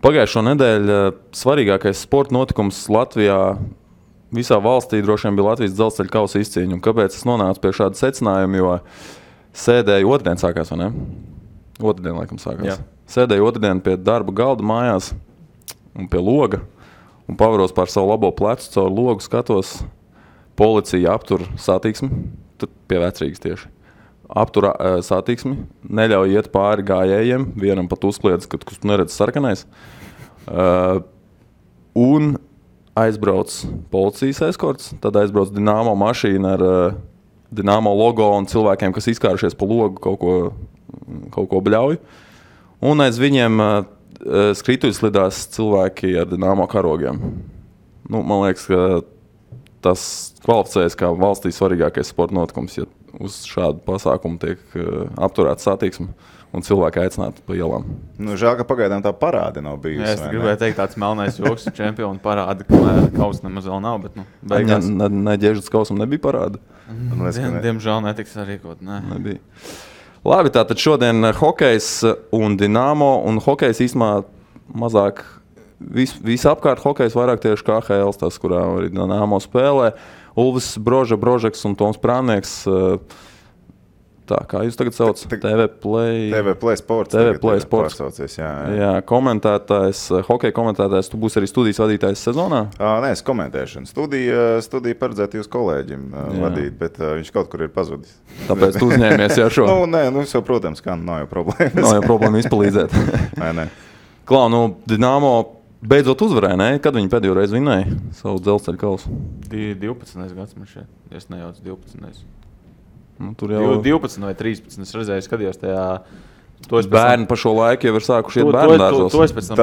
Pagājušo nedēļu svarīgākais sporta notikums Latvijā, visā valstī droši vien bija Latvijas dzelzceļa kausa izcīņa. Kāpēc es nonācu pie šāda secinājuma? Jo sēdēju otrdien sākās, vai ne? Otrdien, laikam, sākās. Jā. Sēdēju otrdien pie darba galda mājās un pie loga un pavaros pār savu labo plecu, caur logu skatos, policija aptur satiksmi, tad pie Vecrīgas tieši. Aptur satiksmi, neļauj iet pāri gājējiem, vienam pat uzkliedz, kad tu neredz sarkanais. Un aizbrauc policijas eskorts, tad aizbrauc Dinamo mašīna ar Dinamo logo un cilvēkiem, kas izkārušies pa logu, kaut ko bļauj. Un aiz viņiem skrituļslidās cilvēki ar Dinamo karogiem. Nu, man liekas, ka tas kvalificējas kā valstī svarīgākais sporta notikums, ja uz šādu pasākumu tiek apturēta satiksme un cilvēki aicināti pa ielām. Nu, žēl, ka pagaidām tā parāde nav bijusi. Es gribēju teikt, tāds melnais joks čempionu parāde, ka kausa nemaz vēl nav, bet beigās. Ne ģežas kausam nebija parāde? Diemžēl netiks sarīkot, nebija. Labi, tātad šodien hokejs un Dinamo, un hokejs īstumā mazāk, visapkārt hokejs vairāk tieši KHL, tas, kurā arī Dinamo spēlē. Ulvis Brožeks un Toms Prānieks. Tā, kā jūs tagad sauc? TV Play Sports. TV Play Sports. Jā, komentētājs, hokeja komentētājs. Tu būsi arī studijas vadītājs sezonā? Nē, es komentēšanu. Studiju paredzētu jūs kolēģim vadīt, bet viņš kaut kur ir pazudis. Tāpēc tu uzņēmies jau šo? Nē, jau, protams, kā nav jau problēmas. Nav jau problēma izpalīdzēt. Nē. Klau, Dinamo beidzot uzvarēja, ne? Kad viņi pēdējo reizi vinēja savu dzelzceļa kausu? 12. gads man šeit. Es nejaucu 12. Nu, tur jau 12 vai 13. Es redzēju, skatījos tajā. Bērni pa šo laiku jau ir sākuši iet bērnu dārzos. To es pēc tam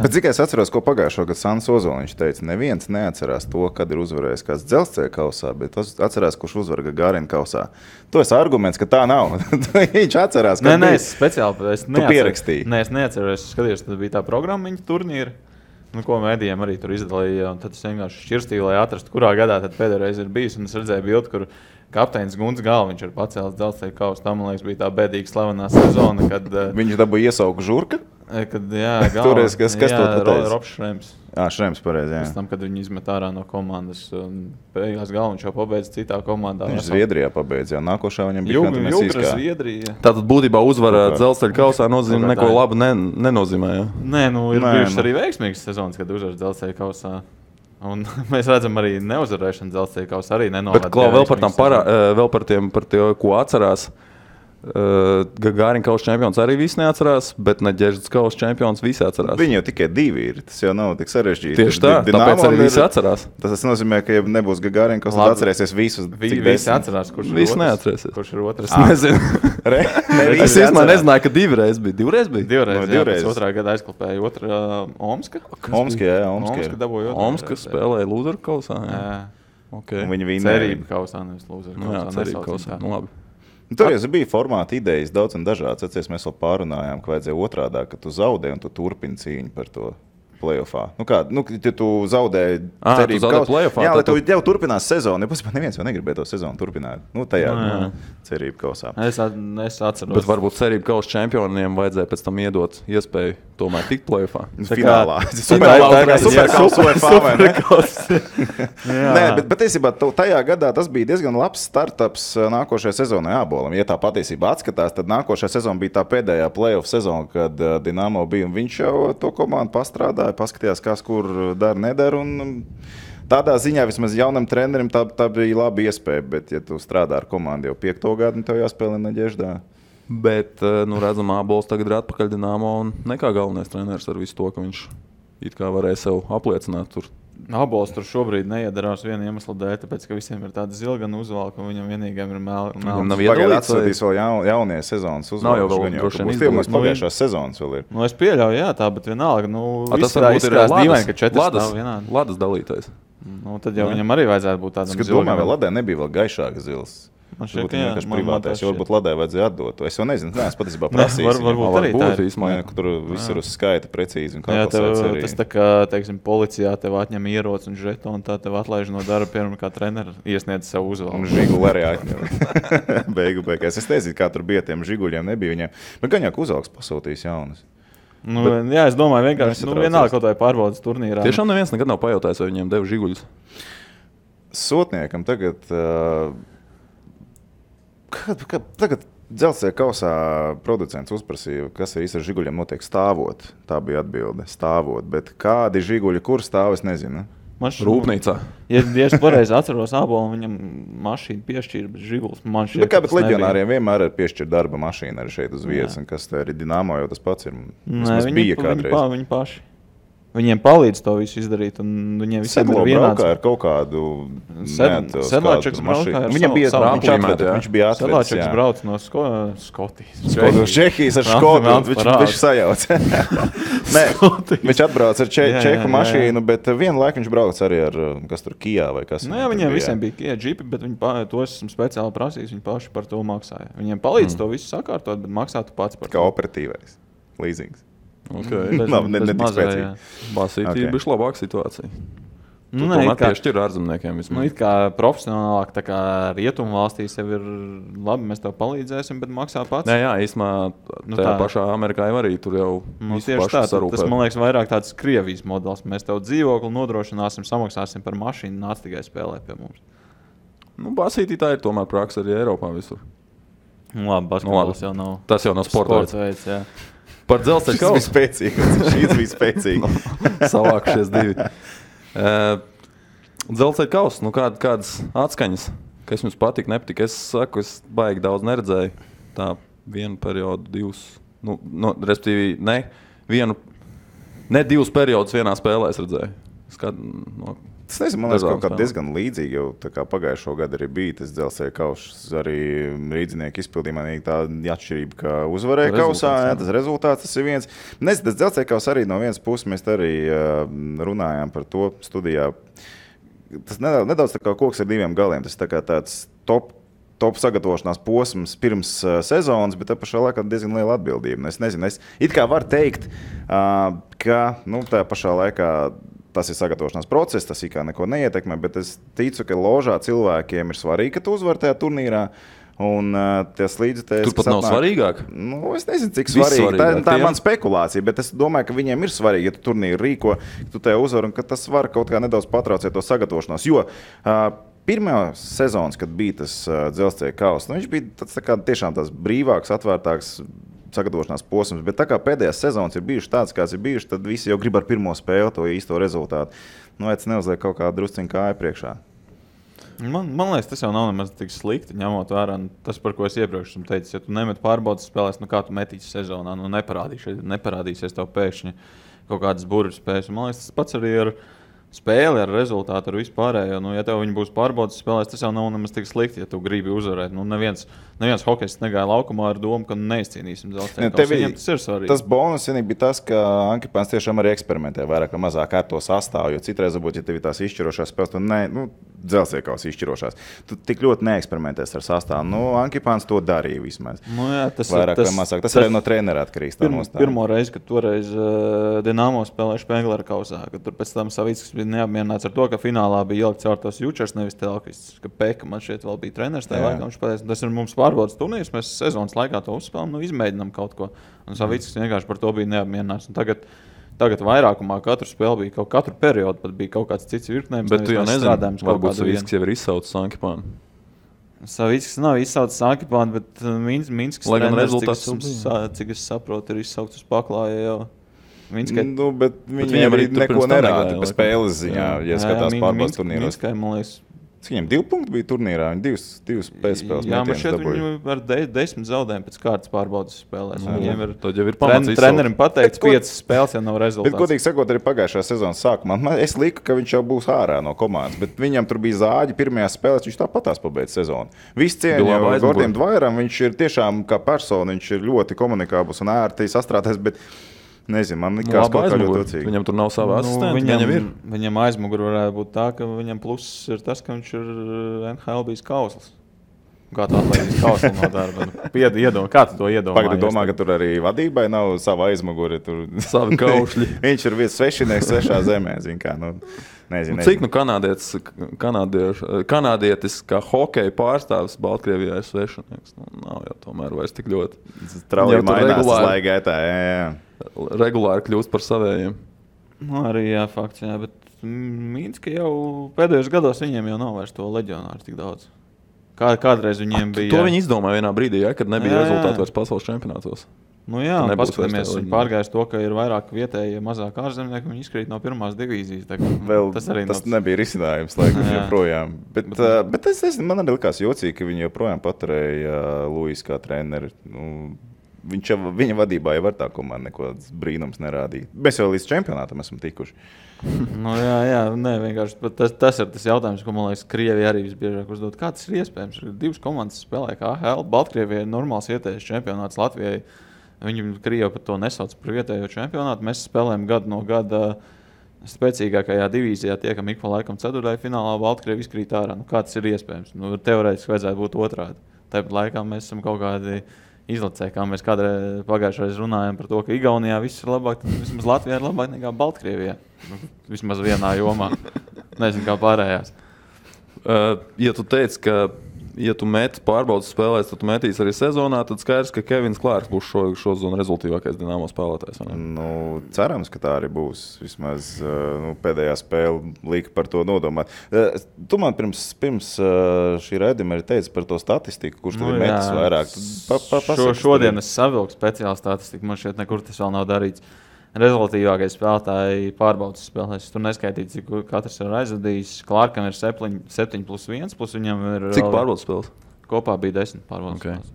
Bet cik es atceros, ko pagājušo gadu Sants Ozoliņš teica, neviens neatcerās to, kad ir uzvarējis kāds dzelzceļa kausā, bet atcerās, kurš uzvar Gagarin kausā. To ir arguments, ka tā nav. Viņš atcerās, ka es speciāli pierakstīju. Nē, es neatceros, es skatījos, tad bija tā programmiņa turnīra. Ko mēdījiem arī tur izdalīja, un tad es vienkārši šķirstīju, lai atrastu, kurā gadā tad pēdējā reize ir bijis, un es redzēju bildi, kur kapteinis Gunts Galviņš ir pacēlis dzelzceļa kausu. Tā, man liekas, bija tā bēdīga slavenā sezona, kad viņš dabūja iesauku žurka? Kad, jā, Galviņš. Kas to pateica? Robs Šrems. Šrems, pareizi, jā. Pēc tam, kad viņi izmet ārā no komandas, un beigās Galviņš jau pabeidza citā komandā. Viņš Zviedrijā pabeidza, jā. Nākošā viņam bija Jugra Zviedrija. Tātad būtībā uzvara dzelzceļa kausā nozīmē neko labu nenozīmē, jā? Nē, ir bijušas arī veiksmīgas sezonas, kad uzvar dzelzceļa kausā. Un mēs redzam arī neuzvarēšanu dzelzceļa kausā arī nenovada. Bet, Klau, vēl par tiem, ko atcerās. Gagarin kausa čempions arī visi neatcerās, bet Neģežas kausa čempions visi atcerās. Viņi jau tikai divi ir, tas jau nav tik sarežģīti. Tieši tā, tāpēc arī visi atcerās. Tas nozīmē, ka ja nebūs Gagarin kausa, tad atcerēsies visus. Visi atcerās, kurš ir otrs. Kurš ir otrs? Nezinu. Es īstenībā nezināju, ka divreiz bija. Divreiz. Otrā gada aizklapēja otrā Omska. Omska dabūja otrā. Omska spēlēja lūzeru kausā. Un viņi vinēja. Cerība kausā, nevis lūzeru kausā. Jā, cerība kausā. Nu, labi. Tur jau bija formāta idejas daudz un dažādas. Atceries, mēs vēl pārunājām, ka vajadzēja otrādā, ka tu zaudē un tu turpini cīņu par to playoffā. Ja tu zaudēji cerību kausā, jā, lai tu jau turpinās sezonu. Neviens jau negribēja to sezonu turpināt. Tajā cerību kausā. Es atceros. Bet varbūt cerību kausa čempioniem vajadzēja pēc tam iedot iespēju tomēr tikt playoffā. Finālā. Nē, bet patiesībā tajā gadā tas bija diezgan labs startups nākošajai sezonai Ābolam. Ja tā patiesībā atskatās, tad nākošā sezona bija tā pēdējā playoff sezona, kad Dinamo bija, un viņš jau to komandu pastrādāja, paskatījās, kas kur dara, nedara, un tādā ziņā vismaz jaunam trenerim tā bija laba iespēja, bet ja tu strādā ar komandu jau 5. gadu, tev jāspēlē Neģeždā. Bet, redzam, Ābols tagad ir atpakaļ Dinamo un nekā galvenais treneris ar visu to, ka viņš it kā varēja sev apliecināt tur. Ābols tur šobrīd neiedarās viena iemesla dēļ, tāpēc, ka visiem ir tāda zilgana uzvalka, un viņam vienīgiem ir melns. Viņam nav iedalīts, atsūtīs vēl jaunie sezonas uzvalkas. Nav jau vēl droši vien izdarīts. Pagājušās sezonas vēl ir. Es pieļauju, jā, tā, bet vienalga, tas varbūt ir dīvaini, ka 4 nav vienādi. Ladas dalītais. Tad jau viņam arī vajadzētu būt tādam zilgam. Es domāju, vai Ladē nebija vēl gaišāka zils. Man šķiet, ka vienkārši privātais, jo varbūt Ladē vajadzēja atdot. Es jau nezinu, es patiesībā prasīju. Varbūt arī tā ir. Tur viss ir uz skaita precīzi. Jā, tas tā kā, teiksim, policijā tev atņem ieroci un žetonu, tā tev atlaiž no darba, piemēram, kā treneri iesniedz savu uzvalku. Un žiguli arī atņem. Beigās. Es nezinu, kā tur bija tiem žiguļiem, nebija viņiem. Bet gan jau, ka uzvalks pasūtījis jaunas. Jā, es domāju, vienkārši vienalga kaut vai pārbaudas turnīrā. Tiešām neviens nekad nav pajautājis, vai viņiem deva žiguļus. Sotniekam tagad Dzelzceļa kausā producents uzprasīja, kas ar žiguļiem notiek stāvot. Tā bija atbilde, stāvot. Bet kādi žiguļi, kur stāv, es nezinu. Rūpnīcā. Ja es pareizi atceros, Ābolam viņam mašīnu piešķīra, bet žiguls man šķiet, bet leģionāriem vienmēr ir piešķirta darba mašīna arī šeit uz vietas. Un kas tā ir Dinamo, jau tas pats ir. Viņi paši. Viņiem palīdz to visu izdarīt, un viņiem visiem ir vienāds. Sedlā ar kaut kādu Sedlāčeks braukā ar viņam bija viņš bija atvedis. Sedlāčeks brauc no Skotijas. Čehijas ar Škotu. Viņš sajauc. Viņš atbrauc ar čehu mašīnu, bet vienu laiku viņš brauc arī ar, kas tur, Kijā vai kas. Jā, viņiem visiem bija Kijā džipi, bet viņi to esmu speciāli prasījis, viņi paši par to maksāja. Viņiem palīdz to visu sakārtot, bet maksā tu pats par to. Kā operatīvais līzings. Okay. Ne tik spēcīgi. Basītī bišķi labāka situācija. Tomēr piešķir ārzemniekiem vismaz. It kā profesionālāk, tā kā rietumu valstīs jau ir labi, mēs tev palīdzēsim, bet maksā pats. Jā, īstenībā tajā pašā Amerikā jau arī tur jau tieši tā, tas man liekas vairāk tāds Krievijas modelis. Mēs tev dzīvokli nodrošināsim, samaksāsim par mašīnu, nāc tikai spēlē pie mums. Basītī tā ir tomēr praksa arī Eiropā visur. Labi, basketbols jau nav. Tas jau nav sports veids, jā. Par Dzelzceļa kausu. Šis bija spēcīgi. Savākušies divi. Dzelzceļa kausu, kādas atskaņas, kas jums patika, nepatika? Es saku, es baigi daudz neredzēju. Tā vienu periodu, divus, respektīvi, ne divus periodus vienā spēlē es redzēju. Es nezinu, man liekas, kaut kā diezgan līdzīgi jau tā kā pagājušo gadu arī bija tas Dzelzceļa kauss, arī rīdzinieku izpildījumā tā atšķirība, ka uzvarēja kausā, tas rezultāts, tas ir viens. Nezinu, tas Dzelzceļa kauss arī no vienas puses mēs arī runājām par to studijā. Tas nedaudz tā kā koks ar diviem galiem, tas tā kā tāds top sagatavošanās posms pirms sezonas, bet tā pašā laikā diezgan liela atbildība. Es nezinu, es it kā varu teikt, ka tā pašā laikā tas ir sagatavošanās process, tas kā neko neietekmē, bet es ticu, ka ložā cilvēkiem ir svarīgi, ka tu uzvari tajā turnīrā. Un tas līdzekļi. Tur pat nav svarīgāk? Es nezinu, cik svarīgi. Tā ir mana spekulācija, bet es domāju, ka viņiem ir svarīgi, ja tu turnīru rīko, ka tu tajā uzvari un ka tas var kaut kā nedaudz patraucēt to sagatavošanos. Jo pirmā sezonas, kad bija tas Dzelzceļa kauss, viņš bija tāds, tiešām tās brīvāks, atvērtāks sagatavošanās posms, bet tā kā pēdējās sezonas ir bijušas tāds, kāds ir bijušas, tad visi jau grib ar pirmo spēli to īsto rezultātu. Es neuzliek kaut kā drusciņu kāju priekšā. Man liekas, tas jau nav nemaz tik slikti, ņemot vērā tas, par ko es iepriekš esmu teicis. Ja tu nemet pārbaudas spēlēs, kā tu metīsi sezonā, neparādīsies tev pēkšņi kaut kādas burvju spējas. Man liekas, tas pats arī ar spēli, ar rezultātu, ar vispārējo. Ja tev viņi būs pārbaudas spēlēs, tas jau nav nemaz tik slikti, ja tu gribi uzvarēt. Neviens hokejists negāja laukumā ar domu, ka neizcīnīsim Dzelzceļa kausu. Viņiem tas ir svarīgi. Tas bonus bija tas, ka Ankipāns tiešām arī eksperimentē vairāk vai mazāk ar to sastāvu, jo citreiz varbūt, ja tev ir tās izšķirošās spēles, tad Dzelzceļa kausa izšķirošās. Tu tik ļoti neeksperimentēs ar sastāvu. Ankipāns to darīja vismaz. Vairāk vai mazāk. Tas arī no trenera atkarīgs. Pirmo reizi, kad toreiz Dinamo spēlēja Špengleru kausā, kad tur pēc tam Savickis bija neapmierināts ar to, ka finālā bija ielikt caur tos Jučers, nevis Telkvists, ka Peka man šeit vēl bija treneris tajā laikā. Viņš pateica, tas ir mums pārbaudas turnīrs, mēs sezonas laikā to uzspēlām, izmēģinām kaut ko. Un Savickis vienkārši par to bija neapmierināts. Un tagad vairākumā katru spēli bija katru periodu, pat bija kaut kāds cits virknējums. Bet tu jau nezini, varbūt Savickis jau ir izsaucis Ankipānu. Savickis nav izsaucis Ankipānu, bet Minskas treneris, cik es saprotu, ir izsaucis uz paklāja jau. Bet viņiem arī neko nerāda pa spēles ziņā, ja skatās pārbaudas turnīros. Minskai, man liekas, viņiem 2 punkti bija turnīrā, viņi divas pēcspēles mētienas dabūja. Jā, man šeit viņi ar 10 zaudējumu pēc kārtas pārbaudas spēlēs. Viņiem ir trenerim pateikts, 5 spēles jau nav rezultāts. Bet, godīgi sakot, arī pagājušā sezonas sākumā, es liku, ka viņš jau būs ārā no komandas, bet viņam tur bija zāģi pirmajās spēlēs, viņš tāpatās pabeidz sezonu. Viss cieņa Gordiem Dvairam, viņš ir tiešām kā persona, viņš ir ļoti komunikābls un ērti sastrādājis, bet nezinu, man likās kaut kā ļoti ocīgi. Viņam tur nav sava asistenta, viņam aizmuguri varētu būt tā, ka viņam pluss ir tas, ka viņš ir NHL bijis kausls. Kā tu atlaidīs kauslu no darba? Kā tu to iedomājies? Pagad, domā, ka tur arī vadībai nav sava aizmuguri. Savi kaušļi. Viņš ir viens svešinieks svešā zemē, zin kā. Nezinu. Cik kanādietis kā hokeja pārstāvis Baltkrievijā ir svešinieks? Nav jau tomēr vairs tik ļoti. Strauji mainās laikā, jā. Regulāri kļūst par savējiem. Arī jā, fakts, jā, bet Mīnska jau pēdējos gados viņiem jau nav vairs to leģionāru tik daudz. Kādreiz viņiem bija... To viņi izdomāja vienā brīdī, kad nebija rezultāti vairs pasaules čempionātos. Un paskatāmies, viņi pārgājis to, ka ir vairāk vietēji, mazāk ārzemnieki, viņi izkrīt no pirmās divīzijas. Tas nebija risinājums, laikam, joprojām. Bet es nezinu, man arī likās jocīgi, ka viņi joprojām paturēja Luis kā treneri. Viņa vadībā jau var tā komanda neko brīnums nerādīt. Mēs jau līdz čempionātam esam tikuši. Vienkārši tas ir tas jautājums, ko man liekas, Krievija arī visbiežāk uzdod. Kā tas ir iespējams? Divas komandas spēlē kā AHL. Baltkrievijai ir normāls vietējais čempionāts, Latvijai. Viņi Krievi par to nesauc par vietējo čempionātu. Mēs spēlējam gadu no gada spēcīgākajā divīzijā, tiekam ik pa laikam ceturtajā finālā, Baltkrievi izkrīt ārā. Kā tas ir iespējams? Teorētiski vajadzētu būt otrādi. Tāpat laikā mēs esam kaut kādi izlacēji, kā mēs kādreiz pagājušreiz runājam par to, ka Igaunijā viss ir labāk, tad vismaz Latvijā ir labāk nekā Baltkrievijā. Vismaz vienā jomā. Nezinu, kā pārējās. Ja tu teici, ka ja tu meti pārbaudas spēlēs, tad tu metīs arī sezonā, tad skaidrs, ka Kevins Klārks būs šo zonu rezultīvākais Dinamo spēlētājs. Cerams, ka tā arī būs. Vismaz pēdējā spēle lika par to nodomāt. Tu man pirms šī raidījuma arī teici par to statistiku, kurš tur ir metis vairāk. Šodien es savilku speciālu statistiku, man šeit nekur tas vēl nav darīts. Rezultīvākais spēlētāji pārbaudas spēlēs. Tur neskaitīts, cik katrs ir aizvadījis. Klārkam ir 7+1, plus viņam ir... Cik pārbaudas spēles? Kopā bija 10 pārbaudas spēles.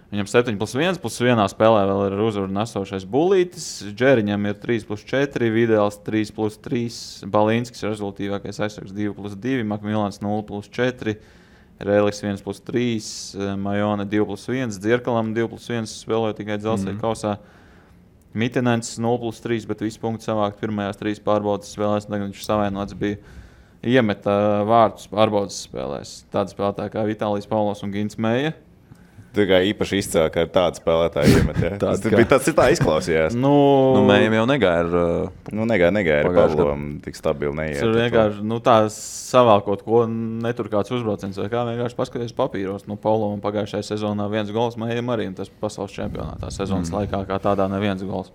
Viņam 7+1, plus vienā spēlē vēl ir uzvaru nesošais Bulītis. Džeriņam ir 3+4, Vidēls 3+3, Balīnskis ir rezultīvākais aizsargs 2+2, Makmilans 0+4, Reliks 1+3, Majone 2+1, Dzirkalam 2+1 spēlēja tikai Dzelzceļa kausā. Mitinens 0+3, bet visu punktu savākt pirmajās 3 pārbaudas spēlēs. Tagad viņš savainots bija iemeta vārtus pārbaudas spēlēs. Tāda spēlētāja kā Vitālijs Paulos un Gins Meija. Tu kā īpaši izcēl, ka tāda spēlētāja iemet, ja? Tas tā izklausījās. Mējam jau negāja ar Pavlovam tik stabili neiet. Tur vienkārši, tā savākot, ko netur kāds uzbrauciens vai kā vienkārši paskaties papīros. Pavlovam pagājušajā sezonā 1 gols, Mējam arī, un tas pasaules čempionātā sezonas laikā kā tādā neviens gols.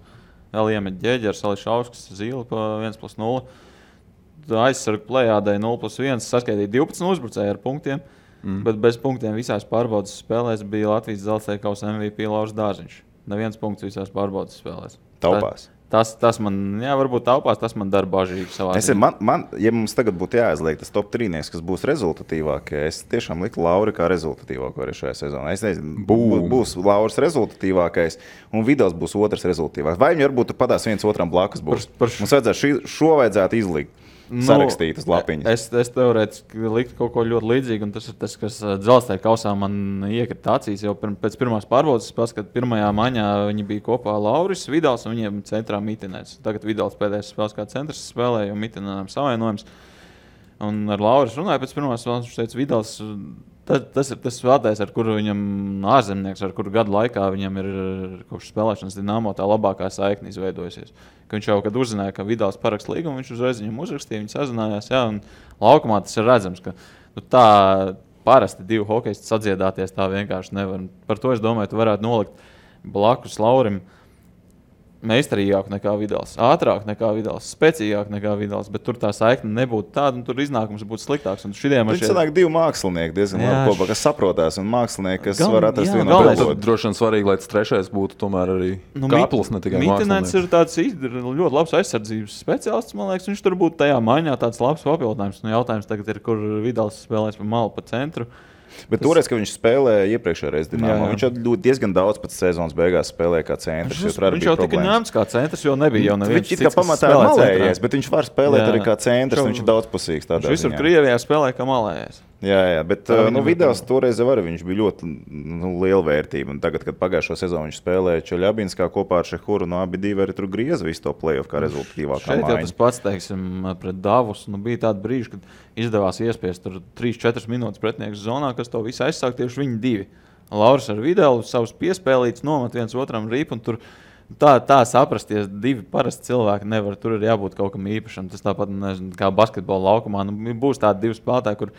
Vēl iemet Ģeģers, Ališauskas, Zīle pa 1+0. Aizsargu plejādai 0+1, saskaitīja 12 uzbrucēji ar punktiem. Bet bez punktiem visās pārbaudas spēlēs bija Latvijas Dzelzceļa kausa MVP Lauris Dārziņš. Neviens punkts visās pārbaudas spēlēs. Taupās. Tas man, varbūt taupās, tas man dara bažīgi savā ziņā. Ja mums tagad būtu jāizliek tas top 3, kas būs rezultatīvākie, es tiešām liktu Lauri kā rezultatīvāko arī šajā sezonā. Es nezinu, būs Lauris rezultatīvākais un Vidals būs otrs rezultatīvākais. Vai viņi varbūt padās viens otram blakus būs? Mums vajadzētu šo vajadzētu izlikt. Sarakstītas lapiņas. Es teorētiski liktu kaut ko ļoti līdzīgu, un tas ir tas, kas Dzelzceļa kausā man iekrita acīs jau pēc pirmās pārbaudas spēles, kad pirmajā maņā viņi bija kopā Lauris, Vidals un viņiem centrā Mitinēts. Tagad Vidals pēdējais spēles kā centrs spēlē, jo Mitinēnam savainojums. Un ar Lauris runāja pēc pirmās spēles, viņš teica, Vidals, tas ir tas spēlētājs, ar kuru viņam ārzemnieks, ar kuru gadu laikā viņam ir kopš spēlēšanas Dinamo tā labākā saikne izveidojusies. Ka viņš jau, kad uzzināja, ka Vidals paraksta līgumu, viņš uzreiz viņam uzrakstīja, viņi sazinājās, un laukumā tas ir redzams, ka tā parasti 2 hokejisti sadziedāties tā vienkārši nevar. Par to es domāju, tu varētu nolikt blakus Laurim meistarīgāk nekā Vidals, ātrāk nekā Vidals, spēcīgāk nekā Vidals, bet tur tā saikne nebūtu tāda, un tur iznākums būtu sliktāks. Tur sanāk 2 mākslinieki diezgan labi kopā, kas saprotās, un mākslinieki, kas var atrast vienu otru. Droši vien svarīgi, lai tas trešais būtu tomēr arī Kāplis, ne tikai mākslinieks. Mitinēns ir tāds ļoti labs aizsardzības speciālists, man liekas, viņš tur būtu tajā maiņā tāds labs papildinājums. Jautājums tagad ir, kur Vidals spēlēs pa malu, pa centru. Bet toreiz, kad viņš spēlēja iepriekšējā reizē Dinamo, viņš jau diezgan daudz pēc sezonas beigās spēlēja kā centrs. Viņš jau tika ņemts kā centrs, jo nebija jau neviens cits, kas pamatā malējies, bet viņš var spēlēt arī kā centrs, viņš ir daudzpusīgs tādā ziņā. Viņš visur Krievijā spēlēja kā malējies. Jā, bet Vidals toreiz arī viņš bija ļoti liela vērtība. Un tagad, kad pagājušo sezonu viņš spēlēja Čeļabinskā kopā ar Šehuru, abi divi arī tur grieza visu to play-off kā rezultatīvākā maiņa. Šeit jau tas pats, teiksim, pret Davus, bija tāda brīža, kad izdevās iespiest tur 3-4 minūtes pretinieks zonā, kas to visu aizsāk tieši viņi divi. Lauris ar Videlu savus piespēlītus nomet viens otram rīpu, un tur Tā saprasties, divi parasti cilvēki nevar. Tur ir jābūt kaut kam īpašam. Tas tāpat, nezinu, kā basketbola laukumā. Būs tādi divi spēlētāji, kur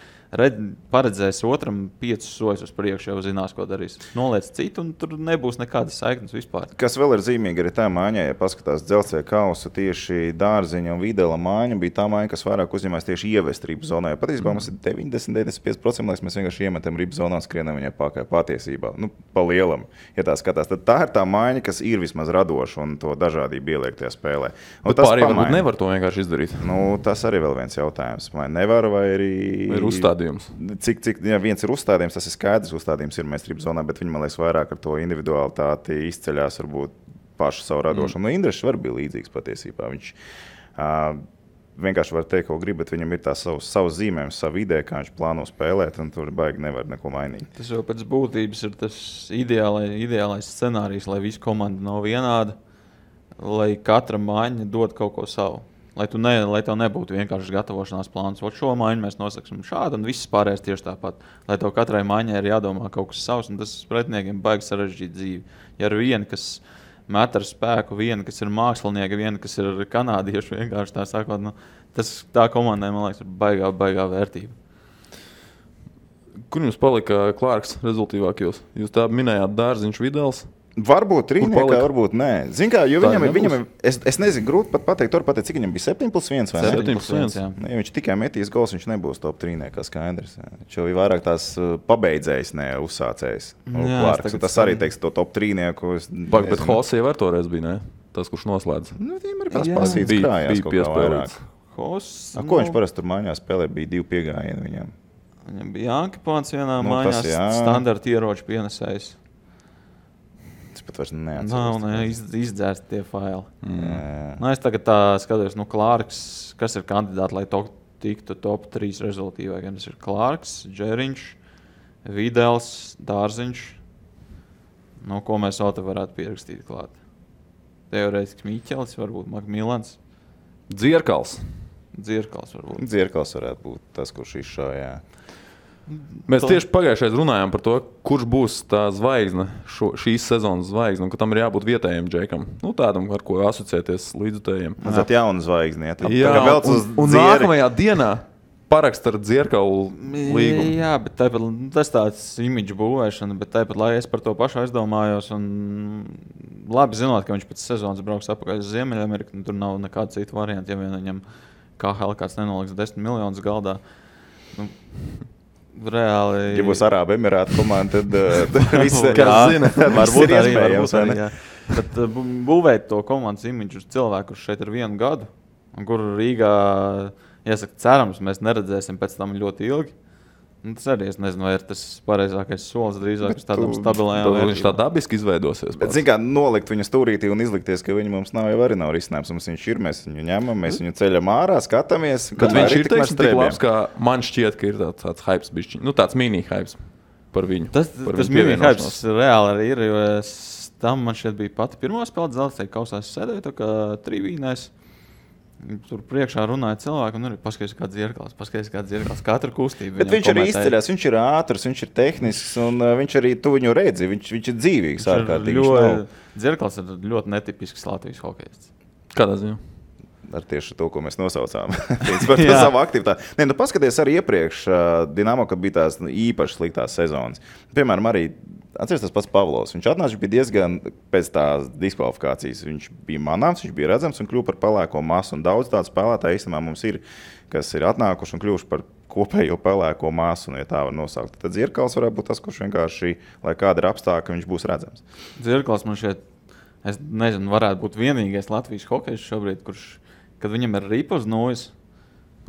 paredzēs otram 5 soļus uz priekšu, jau zinās, ko darīs. Noliec citu, un tur nebūs nekādas saiknes vispār. Kas vēl ir zīmīgi arī tā māņā, ja paskatās Dzelzceļa kausu, tieši Dārziņa un Videla māņa bija tā māņa, kas vairāk uzņemās tieši ievest ribu zonā. Patiesībā mums ir 90-95%, lai mēs vienkārši iemetam ribu zonā, skrienam viņai pakaļ patiesībā. Pa lielam, ja tā skatās. Tad tā ir tā māņa, kas ir vismaz radoša un to dažādību ieliek tajā spēlē. Pārējie varbūt nevar to vienkārši izdarīt. Tas arī vēl viens jautājums. Vai nevar, vai arī... Ir uzstādījums. Ja viens ir uzstādījums, tas ir skaidrs. Uzstādījums ir meistarības zonā, bet viņi, man liekas, vairāk ar to individualitāti izceļās varbūt pašu savu radošumu. Indrešs var bija līdzīgs patiesībā. Viņš vienkārši var teikt, ko grib, bet viņam ir tās savas zīmējumus, savu ideju, kā viņš plāno spēlēt, un tur baigi nevar neko mainīt. Tas jau pēc būtības ir tas ideālais scenārijs, lai visa komanda nav vienāda, lai katra mājiņa dod kaut ko savu. Lai tev nebūtu vienkārši gatavošanās plāns. Šo mājiņu mēs nosaksim šādu, un viss pārējais tieši tāpat. Lai tev katrai mājiņai ir jādomā kaut kas savs, un tas pretiniekiem baigi sarežģīt dzīvi. Ja ir viena, kas met ar spēku, viena, kas ir mākslinieka, viena, kas ir kanādieši, vienkārši tā sakot, tā komandai, man liekas, ir baigā vērtība. Kur jums palika Klārks rezultīvākajos? Jūs tā minējāt Dārziņš, Videls. Varbūt trīniekā, varbūt nē. Zin kā, jo viņam es nezinu, grūti pat pateikt, cik viņam bija 7+1 vai ne? 7+1, jā. Ja viņš tikai metīs gols, viņš nebūs top trīniekā skaidrs. Viņš jau ir vairāk tās pabeidzējs, ne uzsācējs. Klārks, tas arī teiks to top trīnieku. Bet Hosē jau ar toreiz bija, ne? Tas, kurš noslēdz. Viņam arī pasīts krājās kaut kā vairāk. Ko viņš parasti tur mājās spēlē, bija 2 piegājieni viņam? Viņam bija Jānkipāns vienā mājās, standarta ieroču pienesējs. Es pat vairs neatceros. Izdzērst tie faili. Es tagad tā skatos, Klārks, kas ir kandidāti, lai tiktu top 3 rezultīvā. Tas ir Klārks, Džeriņš, Videls, Dārziņš. Ko mēs vēl te varētu pierakstīt klāt? Teorētiski Miķelis, varbūt Makmilans. Dzierkals varbūt. Dzierkals varētu būt tas, kurš izšāvā. Mēs tieši pagājušajā runājām par to, kurš būs tā zvaigzne, šīs sezonas zvaigzne, un ka tam ir jābūt vietējiem džekam. Tādam, ar ko asociēties līdzutējiem. Tas ir jauna zvaigzne. Jā, un nākamajā dienā parakst ar Dzierkalu līgumu. Jā, bet tas tāds imidžu būvēšana, bet tāpat, lai es par to pašu aizdomājos, un labi zinot, ka viņš pēc sezonas brauks apakaļ uz Ziemeļameriku, tur nav nekāda cita varianta, ja vien viņam KHL kāds nenoliks 10 miljonus galdā. Reāli. Ja būs Arābu Emirātu komanda, tad viss zina. Varbūt ir iespējams. Bet būvēt to komandas imidžu uz cilvēku, kurš šeit ir 1 gadu, un kur Rīgā, jāsaka, cerams, mēs neredzēsim pēc tam ļoti ilgi. Tas arī, es nezinu, vai ir tas pareizākais solis drīzāk uz tādām stabilējām vērtībām. Viņš tā dabiski izveidosies. Bet, zin kā, nolikt viņu stūrītī un izlikties, ka viņu mums nav, jau arī nav risinājums. Mums viņš ir, mēs viņu ņemam, mēs viņu ceļam ārā, skatāmies. Kad viņš ir tik labs, kā man šķiet, ka ir tāds hypes bišķiņ. Tas mini-hypes par viņu. Tas mini-hypes reāli arī ir, jo tam man šķiet bija pati pirmā spēle Dzelzceļa kausā. Es sēdēju tā kā trivīnēs. Tur priekšā runāja cilvēki, un arī paskaties, kāds Dzierkals, katra kustība. Bet viņš arī izceļās, viņš ir ātrs, viņš ir tehnisks, un viņš arī tu viņu redzi, viņš ir dzīvīgs ārkārtīgi. Dzierkals ir ļoti netipisks Latvijas hokejists. Kādā ziņā? Ar tieši to, ko mēs nosaucām. Par savu aktivitāti. Paskaties arī iepriekš Dinamo, kad bija tās īpaši sliktās sezonas. Piemēram, arī atceries tas pats Pavlovs. Viņš atnāca, viņš bija diezgan pēc tās diskvalifikācijas. Viņš bija manāms, viņš bija redzams un kļuva par pelēko masu. Un daudz tādu spēlētāju īstenībā mums ir, kas ir atnākuši un kļuvuši par kopējo pelēko masu, ja tā var nosaukt. Tad Dzierkals varētu būt tas, kurš vienkārši, lai kāda ir apstākļa, viņš būs redzams. Dzierkals man šeit, es nezinu, varētu būt vienīgais Latvijas hokejs šobrīd, kurš, kad viņam ir ripas nojas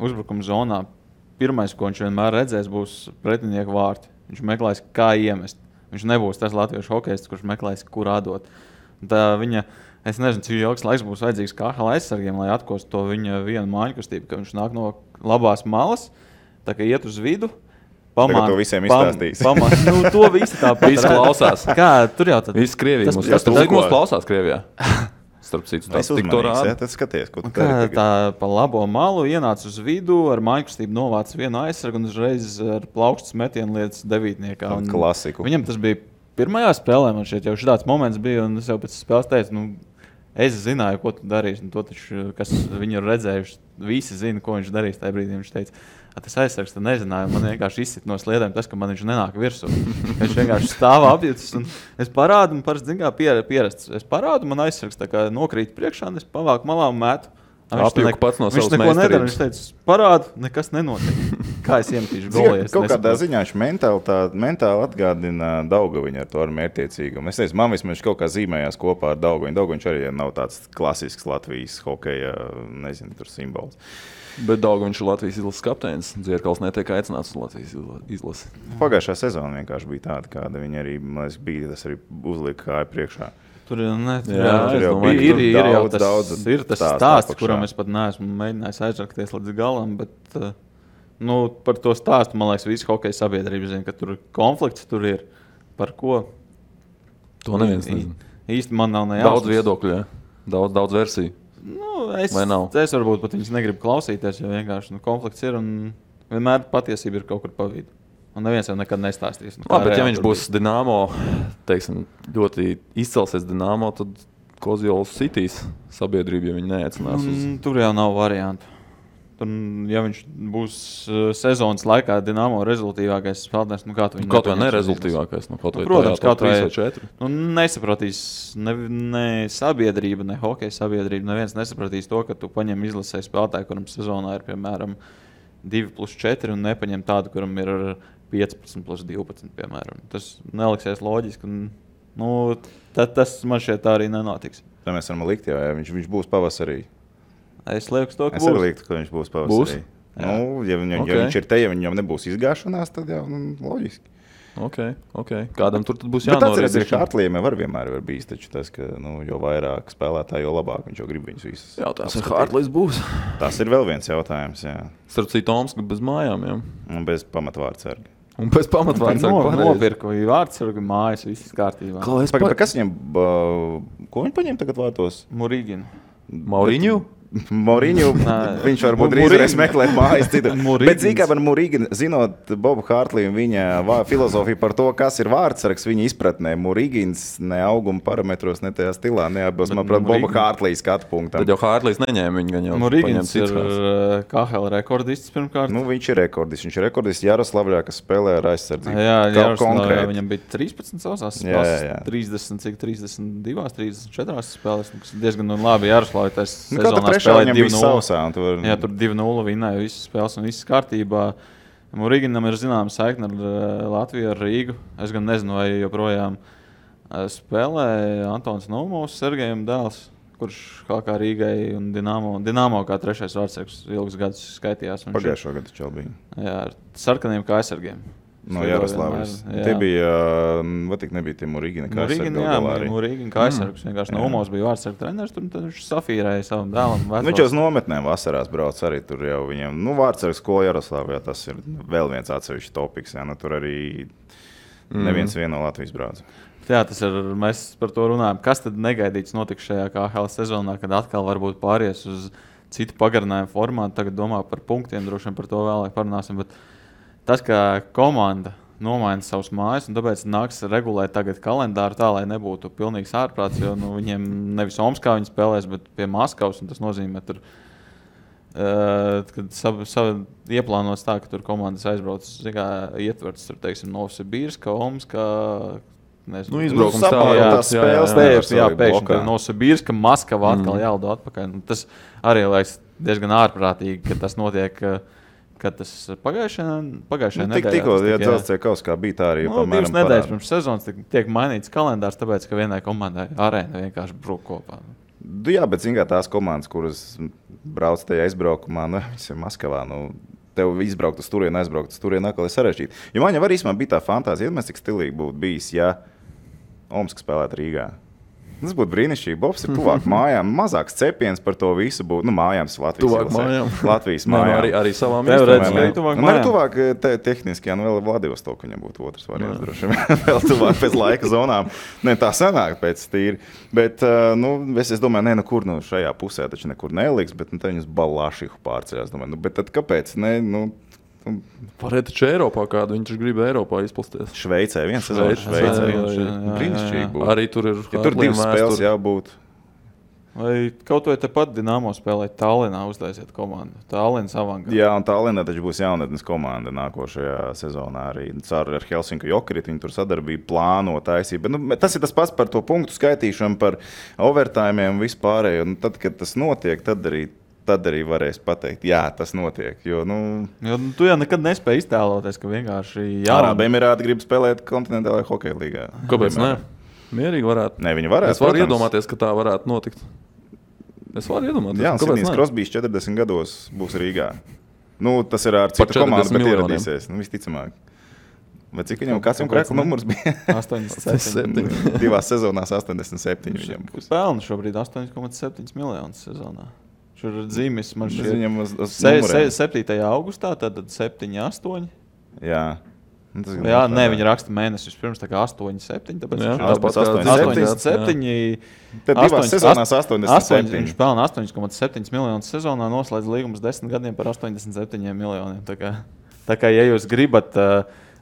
uzbrukuma zonā, pirmais, ko viņš vienmēr redzēs, būs pretinieku vārti. Viņš meklēs, kā iemest. Viņš nebūs tas latviešu hokejists, kurš meklēs, kur atdot. Es nezinu, cik ilgs laiks būs vajadzīgs KHL aizsargiem, lai atkostu to viņa vienu māju kustību, ka viņš nāk no labās malas, tā kā iet uz vidu. Tagad to visiem izstāstīs. To visi tāpat. Visi klausās. Kā, tur jau tad. Visi Krievijas mums. Cik mums klausās Krievijā? Starp citu, tas tik to rāda. Tad skaties, ko tu dari. Tā pa labo malu ienāca uz vidu, ar mājkustību novāca vienu aizsargu un uzreiz ar plaukstas metienu lietas devītniekā. Klasiku. Viņam tas bija pirmajā spēlē, man šeit jau šāds moments bija, un es jau pēc spēles teicu, Es zināju, ko tu darīsi. To taču, kas viņu ir redzējuši, visi zina, ko viņš darīs. Tajā brīdī viņš teica, tas aizsargs nezināja. Man vienkārši izsit no sliedēm tas, ka man viņš nenāk virsū. Viņš vienkārši stāv apjucis. Es parādu, man parasti pierasts. Es parādu, man aizsargs tā kā nokrīt priekšā, un es pavāku malā un metu. Apjuku pats no savas neko nedara. meistarības. Viņš teica, parādu, nekas nenotiek. Kā es iemetīšu golī? Kaut kādā ziņā viņš mentāli atgādina Daugaviņu ar to ar mērķtiecīgumu. Es teicu, man vismaz kaut kā zīmējās kopā ar Daugaviņu. Daugaviņš arī nav tāds klasisks Latvijas hokeja, nezinu, tur simbols. Bet Daugaviņš ir Latvijas izlases kapteinis. Dzierkals netiek aicināts uz Latvijas izlasi. Pagājušā sezona vienkārši bija tāda, kāda viņa arī bija. Tas arī uzlika kāju priekšā. Tur ir jau tas stāsts, kuram es pat neesmu mēģinājis aizrakties līdz galam. Bet, par to stāstu, man liekas, visi hokeja sabiedrība zina, ka tur konflikts tur ir. Par ko? To neviens nezina. Īsti man nav nejausmas. Daudz viedokļu, jā. Daudz versiju. Es varbūt pat viņus negribu klausīties, jo vienkārši konflikts ir un vienmēr patiesība ir kaut kur pa vidu. Un neviens jau nekad nestāstīs. Bet ja viņš būs Dinamo, teiksim, ļoti izcelsies Dinamo, tad Kozjols sitīs sabiedrību, ja viņi neaicinās uz... Tur jau nav variantu. Ja viņš būs sezonas laikā Dinamo rezultīvākais spēlētājs, kā tu viņu kaut vai nerezultīvākais, protams, kaut vai 4. Nesapratīs ne sabiedrība, ne hokeja sabiedrība. Neviens nesapratīs to, ka tu paņem izlasē spēlētāju, kuram sezonā ir, piemēram, 2+4 un nepaņem tādu, kuram ir 15+12, piemēram. Tas neliksies loģiski. Tas man šķiet tā arī nenotiks. Tā mēs varam likt, ja viņš būs pavasarī. Es lieku to, ka būs. Es arī liktu, ka viņš būs pavasarī. Ja viņš ir te, ja viņam nebūs izgāšanās, tad jau loģiski. Okay. Kādam tur būs jānorēdz. Bet jānorēdz. Tas ir Hartlījiem vienmēr var bijis, taču tas, ka jo vairāk spēlētāji, jo labāk viņš jau grib viņus visus. Jautājums, vai Hartlījs būs? Tas ir vēl viens jautājums, jā. Starp citu, Omska bez mājām, jā. Un bez pamatvārdsarga. Un bez pamatvārdsarga. Nopirku vārdsargu mājas, viss kārtībā. Kas viņam, ko viņi paņem tagad vārtos? Murīginu. Mauriņu? Moriņu, viņš varbūt drīz meklēt mājas citu. Bet zīkā par Murīginu, zinot Bobu Hartliju un viņa filozofiju par to, kas ir vārdsargs viņa izpratnē, Murīgins ne auguma parametros, ne tajā stilā neatbilst, manuprāt, Boba Hartlija skatu punktam. Tad jau Hartlijs neņēma viņu, gan jau Murīgins ir KHL rekordists pirmkārt. Viņš ir rekordists Jaroslavļā, kas spēlē ar aizsardzību. Jā, Jaroslavļā viņam bija 13 savās spēlēs, 32, 34 spēlēs, kas diezgan labi Jaroslavļā tas sezonā. Viņam bija sausā. Jā, tur 2-0 vinnēja visas spēles un viss kārtībā. Murīginam ir zināma saikne ar Latviju, ar Rīgu. Es gan nezinu, vai joprojām spēlē Antons Naumovs, Sergejam dēls, kurš kā Rīgai un Dinamo kā trešais vārdsargs ilgus gadus skaitījās. Pagājušo gadu čau bija. Jā, ar sarkaniem kā aizsargiem. No Jaroslavas. Tie bija, nebija tie Murīgina kā aizsargi. Murīgina kā aizsargs. Vienkārši Naumovs bija vārdsargu treneris, tur viņš safīrēja savam dēlam. Viņš jau uz nometnēm vasarās brauc arī tur jau viņam. Vārdsargu skola Jaroslavā, tas ir vēl viens atsevišķs topiks. Jā, tur arī neviens no Latvijas brauc. Jā, tas ir, mēs par to runājam. Kas tad negaidīts notiks šajā KHL sezonā, kad atkal varbūt pāries uz citu pagarinājumu formātu? Tagad domā par punktiem, droši vien par to vēlāk parunāsim, bet tas, ka komanda nomaina savus mājas, un tāpēc nāks regulēt tagad kalendāru tā, lai nebūtu pilnīgs ārprāts, jo viņiem nevis Omskā viņi spēlēs, bet pie Maskavas, un tas nozīmē, tur, kad ieplānots tā, ka tur komandas aizbrauc, ietverts, tur, teiksim, Novsibirska, Omskā, nezinu. Izbraukums tā, jā, pēkšņi Novsibirska, Maskava atkal jālido atpakaļ. Tas arī liekas diezgan ārprātīgi, ka tas notiek. Kad tas pagājušajā nedēļā. Tikko, ja dzelzceļa kausā bija tā arī. 2 nedēļas pirms sezonas tiek mainīts kalendārs, tāpēc, ka vienai komandai arēna vienkārši brūk kopā. Jā, bet zin kā tās komandas, kuras brauc tajā izbraukumā, viņas ir Maskavā, tev izbraukt uz turieni, aizbraukt uz turieni, atkal ir sarežģīti. Jo man jau arī bija tā fantāzija, cik stilīgi būtu bijis, ja Omska spēlētu Rīgā. Tas būtu brīnišķīgi. Bobs ir tuvāk mājām. Mazāks cepiens par to visu būtu. Mājām tas Latvijas mājām. Arī savām iestādēm. Man ir tuvāk tehniski, vēl Vladivostoku viņam būtu otrs variants. Droši vēl tuvāk pēc laika zonām. Tā sanāk pēc tīri. Bet, es domāju, kur šajā pusē taču nekur neliks, bet te viņus Balāšihu pārceļās. Bet tad kāpēc? Pārēt taču Eiropā kādu, viņš grib Eiropā izplasties. Šveicē, viens sezons Šveicē. Brīnišķīgi būtu. Arī tur ir. Ja tur 2 spēles jābūt. Vai kaut vai tepat Dinamo spēlēt Tallinā, uztaisiet komandu? Tallinas avangā. Jā, un Tallinā taču būs jaunatnes komanda nākošajā sezonā arī. Ar Helsinku Jokerit viņi tur sadarbību plāno taisīt. Bet, tas ir tas pats par to punktu skaitīšanu, par overtājumiem un vispārējo. Tad, kad tas notiek, tad arī varēs pateikt, jā, tas notiek. Jo Tu jau nekad nespēji iztēloties, ka vienkārši Arābu Emirāti grib spēlēt kontinentālajā hokeja līgā. Kāpēc ne? Mierīgi varētu. Ne, viņi varētu. Es varu iedomāties, ka tā varētu notikt. Es varu iedomāties. Jā, un Sidnijs Krosbijs 40 gados būs Rīgā. Tas ir ar citu komandu, bet ieradīsies. Visticamāk. Vai cik viņam kāds konkrēts numurs bija? 87. Divās sezonās 87 viņam būs. Pelna šobrīd 8,7 miljonus sezonā. Šur ir dzīmes man šeit 7. augustā, tad 7, 8. Jā. Nē, viņi raksta mēnesis pirms, tā kā 8, 7. Tāpēc tāpēc 87. Tad divās sezonās 87. Viņš pelna 8,7 miljonus sezonā, noslēdz līgumus 10 gadiem par 87 miljoniem. Tā kā, ja jūs gribat,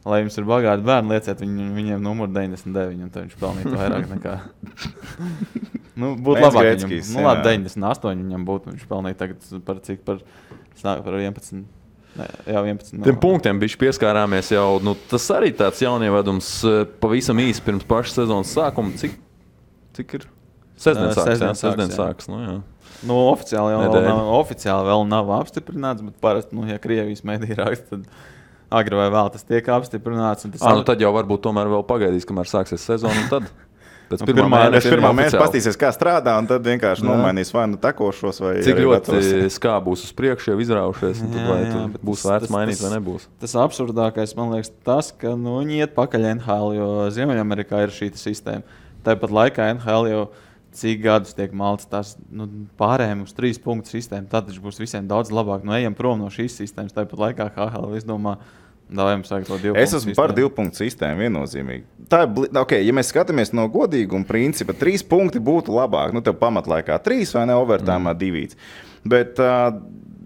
lai jums ir bagāti bērni, lieciet viņiem numuru 99, un tad viņš pelnītu vairāk nekā. Būtu labāk viņam. Labi, 98 viņam būtu, viņš pelnīja tagad par 11. Jā, 11. Tiem punktiem bija pieskārāmies jau. Tas arī tāds jaunievedums pavisam īsi pirms pašas sezonas sākuma. Cik ir? Sestdien sāks. Oficiāli vēl nav apstiprināts, bet parasti, ja Krievijas mediji raksta, tad agri vai vēl tas tiek apstiprināts. Tad jau varbūt tomēr vēl pagaidīs, kamēr sāksies sezona un tad. Pēc pirmā mēneša pastīsies, kā strādā, un tad vienkārši nomainīs vai tekošos, vai cik ļoti skā būs uz priekšu, jau izraušies, un tad vai būs vērts mainīt vai nebūs. Tas absurdākais, man liekas, tas, ka viņi iet pakaļ NHL, jo Ziemeļamerikā ir šī sistēma. Tāpat laikā NHL jau cik gadus tiek malts tās pārējiem uz 3 punktu sistēmu, tad būs visiem daudz labāk. Ejam prom no šīs sistēmas, tāpat laikā HL izdomā. Es esmu par 2 punktu sistēmu viennozīmīgi. Tā ir, ja mēs skatāmies no godīguma principa, 3 punkti būtu labāk. Tev pamatlaikā 3 vai ne, overtājumā 2. Bet,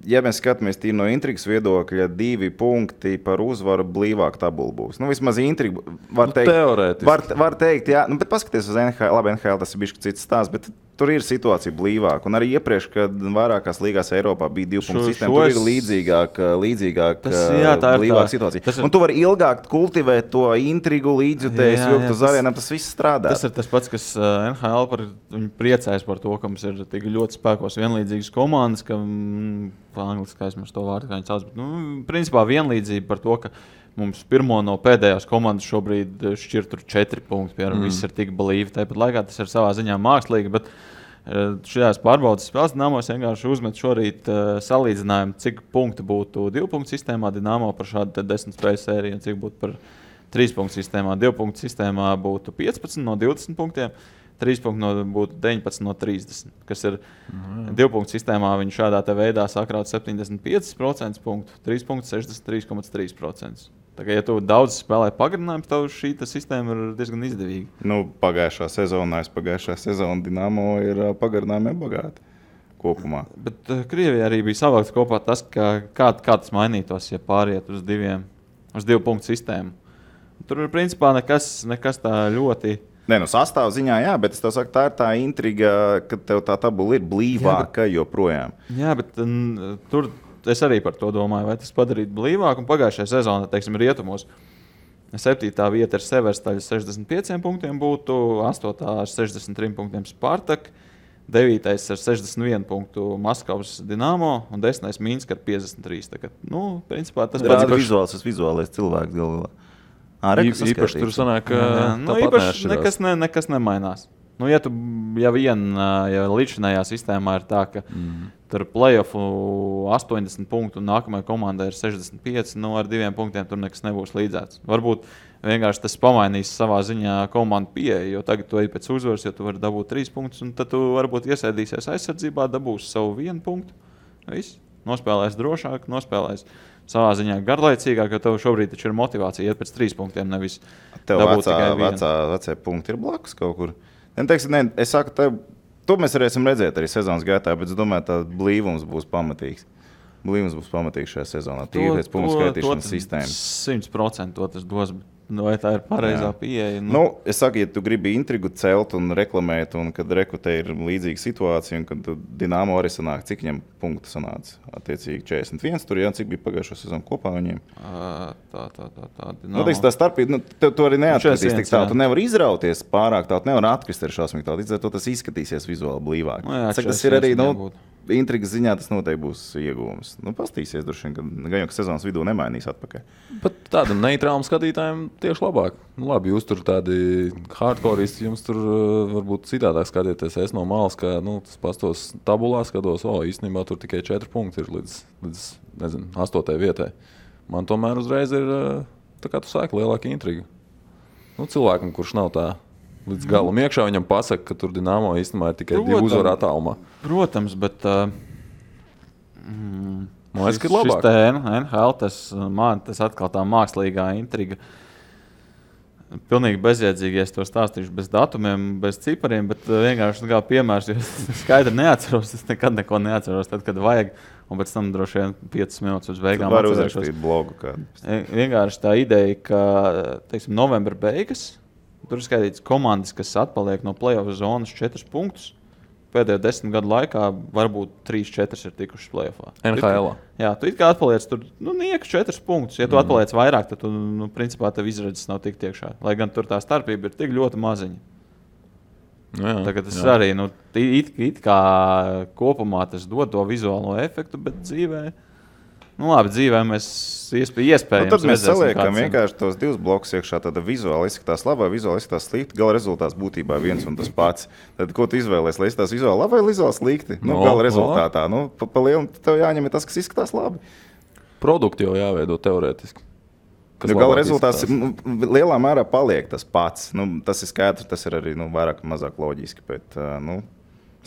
ja mēs skatāmies tīri no intrigas viedokļa, 2 punkti par uzvaru blīvāk tabula būs. Vismaz intriga var teikt. Teorētiski. Var teikt, jā. Bet paskaties uz NHL. Labi, NHL tas ir bišķi cits stāsts, bet tur ir situācija blīvāk. Un arī iepriekš, kad vairākās līgās Eiropā bija 2 punktu sistēma, tur ir līdzīgāk blīvāk situācija. Un tu vari ilgāk kultivēt to intrigu, līdzjutējus, jo uz arēnām tas viss strādā. Tas ir tas pats, kas NHL viņi priecājas par to, ka mums ir tik ļoti spēkos vienlīdzīgas komandas, ka angliski aizmirst to vārdu, kā viņi sauc. Bet, principā vienlīdzība par to, ka mums pirmo no pēdējās komandas šobrīd šķir tur 4 punkti, piemēram, viss ir tik blīvi. Tāpat laikā tas ir savā ziņā mākslīgi, bet šajās pārbaudas spēles Dinamos vienkārši uzmet šorīt salīdzinājumu, cik punkti būtu 2 punktu sistēmā Dinamo par šādu 10 spēļu sēriju un cik būtu par 3 punktu sistēmā. 2 punktu sistēmā būtu 15 no 20 punktiem, 3 punkti būtu 19 no 30, kas ir 2 punktu sistēmā. Viņi šādā veidā sakrāt 75% punktu, 3 punktu 63,3%. Tā kā, ja tu daudz spēlē pagarinājumu, tad šī sistēma ir diezgan izdevīga. Pagājušā sezona Dinamo ir pagarinājumiem bagāti kopumā. Bet Krievijā arī bija savākts kopā tas, kā tas mainītos, ja pāriet uz 2 punktu sistēmu. Tur ir principā nekas tā ļoti. Sastāv ziņā, jā, bet es tev saku, tā ir tā intriga, ka tev tā tabula ir blīvāka joprojām. Jā, bet tur es arī par to domāju, vai tas padarīt blīvāk. Un pagājušajā sezonā, teiksim, rietumos 7. vieta ar Severstaļu 65 punktiem būtu, 8. ar 63 punktiem Spartak, 9. ar 61 punktu Maskavas Dinamo un 10. Minska ar 53. Tā kā, principā tas pats vizuālais cilvēks galvā. Īpaši tur sanāk, ka nekas nemainās. Ja līdzinājā sistēmā ir tā, ka tur play-offu 80 punktu un nākamajai komandai ir 65, ar 2 punktiem tur nekas nebūs līdzēts. Varbūt vienkārši tas pamainīs savā ziņā komandu pieeju, jo tagad tu ej pēc uzvaras, jo tu vari dabūt 3 punktus, un tad tu varbūt iesēdīsies aizsardzībā, dabūsi savu 1 punktu. Viss. Nospēlēs drošāk, nospēlēs savā ziņā garlaicīgāk, jo tev šobrīd taču ir motivācija iet pēc 3 punktiem, nevis dabūt tikai 1. Vecie punkti ir blakus kaut kur. Es saku, to mēs varēsim redzēt arī sezonas gaitā, bet es domāju, ka blīvums būs pamatīgs. Blīvums būs pamatīgs šajā sezonā. Tīri pēc punktu skaitīšanas sistēmas. 100% to tas dos. vai tā ir pareizā pieeja? Es saku, ja tu gribi intrigu celt un reklamēt, un kad rekrutē ir līdzīga situācija, un kad Dinamo arī sanāk, cik viņam punktu sanāca, attiecīgi 41, tur cik bija pagājušo sezonu kopā viņiem. Tā. Tā starpība, tu arī neatkritīs tik tālu, tu nevari izrauties pārāk tālu, nevar atkrist ar šausmīgi tālu, līdz ar to tas izskatīsies vizuāli blīvāk. Tas ir arī, intrigas ziņā tas noteikti būs iegūms. Pastīsies droši vien, ka gan jau sezonas vidū nemainīs atpakaļ. Bet tādam neitrālam skatītājiem tieši labāk. Labi, jūs tur tādi hardcoreisti, jums tur varbūt citādāk skatieties. Es no malas, ka tas pastos tabulā skatos, īstenībā tur tikai 4 punkti ir līdz nezinu, 8. vietai. Man tomēr uzreiz ir, tā kā tu sāki, lielāka intriga. Cilvēkam, kurš nav tā līdz galam iekšā, viņam pasaka, ka tur Dinamo īstenībā ir tikai 2 uzvaru attālumā. Protams, bet man liekas, ka ir labāk. Šis NHL, tas atkal tā mākslīgā intriga. Pilnīgi bezjēdzīgi, ja es to stāstīšu bez datumiem, bez cipariem, bet vienkārši kā piemērs, jo es skaidri neatceros, es nekad neko neatceros, tad, kad vajag, un pēc tam droši vien 5 minūtes uz beigām atcerēšos. Var uzrakstīt blogu kādu. Vienkārši tā ideja, ka, teiksim, novembra beigas, tur ir skaitīts komandas, kas atpaliek no play-off zonas 4 punktus. Pēdējo 10 gadu laikā varbūt 3-4 ir tikušas play-offā. NHL. Jā, tu it kā atpaliec tur, nieku 4 punktus. Ja tu atpaliec vairāk, tad tu, principā, tev izredzes nav tik tiekšā. Lai gan tur tā starpība ir tik ļoti maziņa. Tagad tas arī, it kā kopumā tas dod to vizuālo efektu, bet dzīvē... labi, dzīvē mēs iespējams tad mēs saliekam vienkārši tos 2 blokus iekšā, tāda vizuāli izskatās labā, vizuāli izskatās slikti, gala rezultāts būtībā viens un tas pats. Tad ko tu izvēlēsi, lai izskatās vizuāli labi vai vizuāli slikti? Gala rezultātā. Pa lielu tev jāņem tas, kas izskatās labi. Produkti jau jāveido teorētiski. Gala rezultāts lielā mērā paliek tas pats. Tas ir skaidrs, tas ir arī vairāk un mazāk loģiski, bet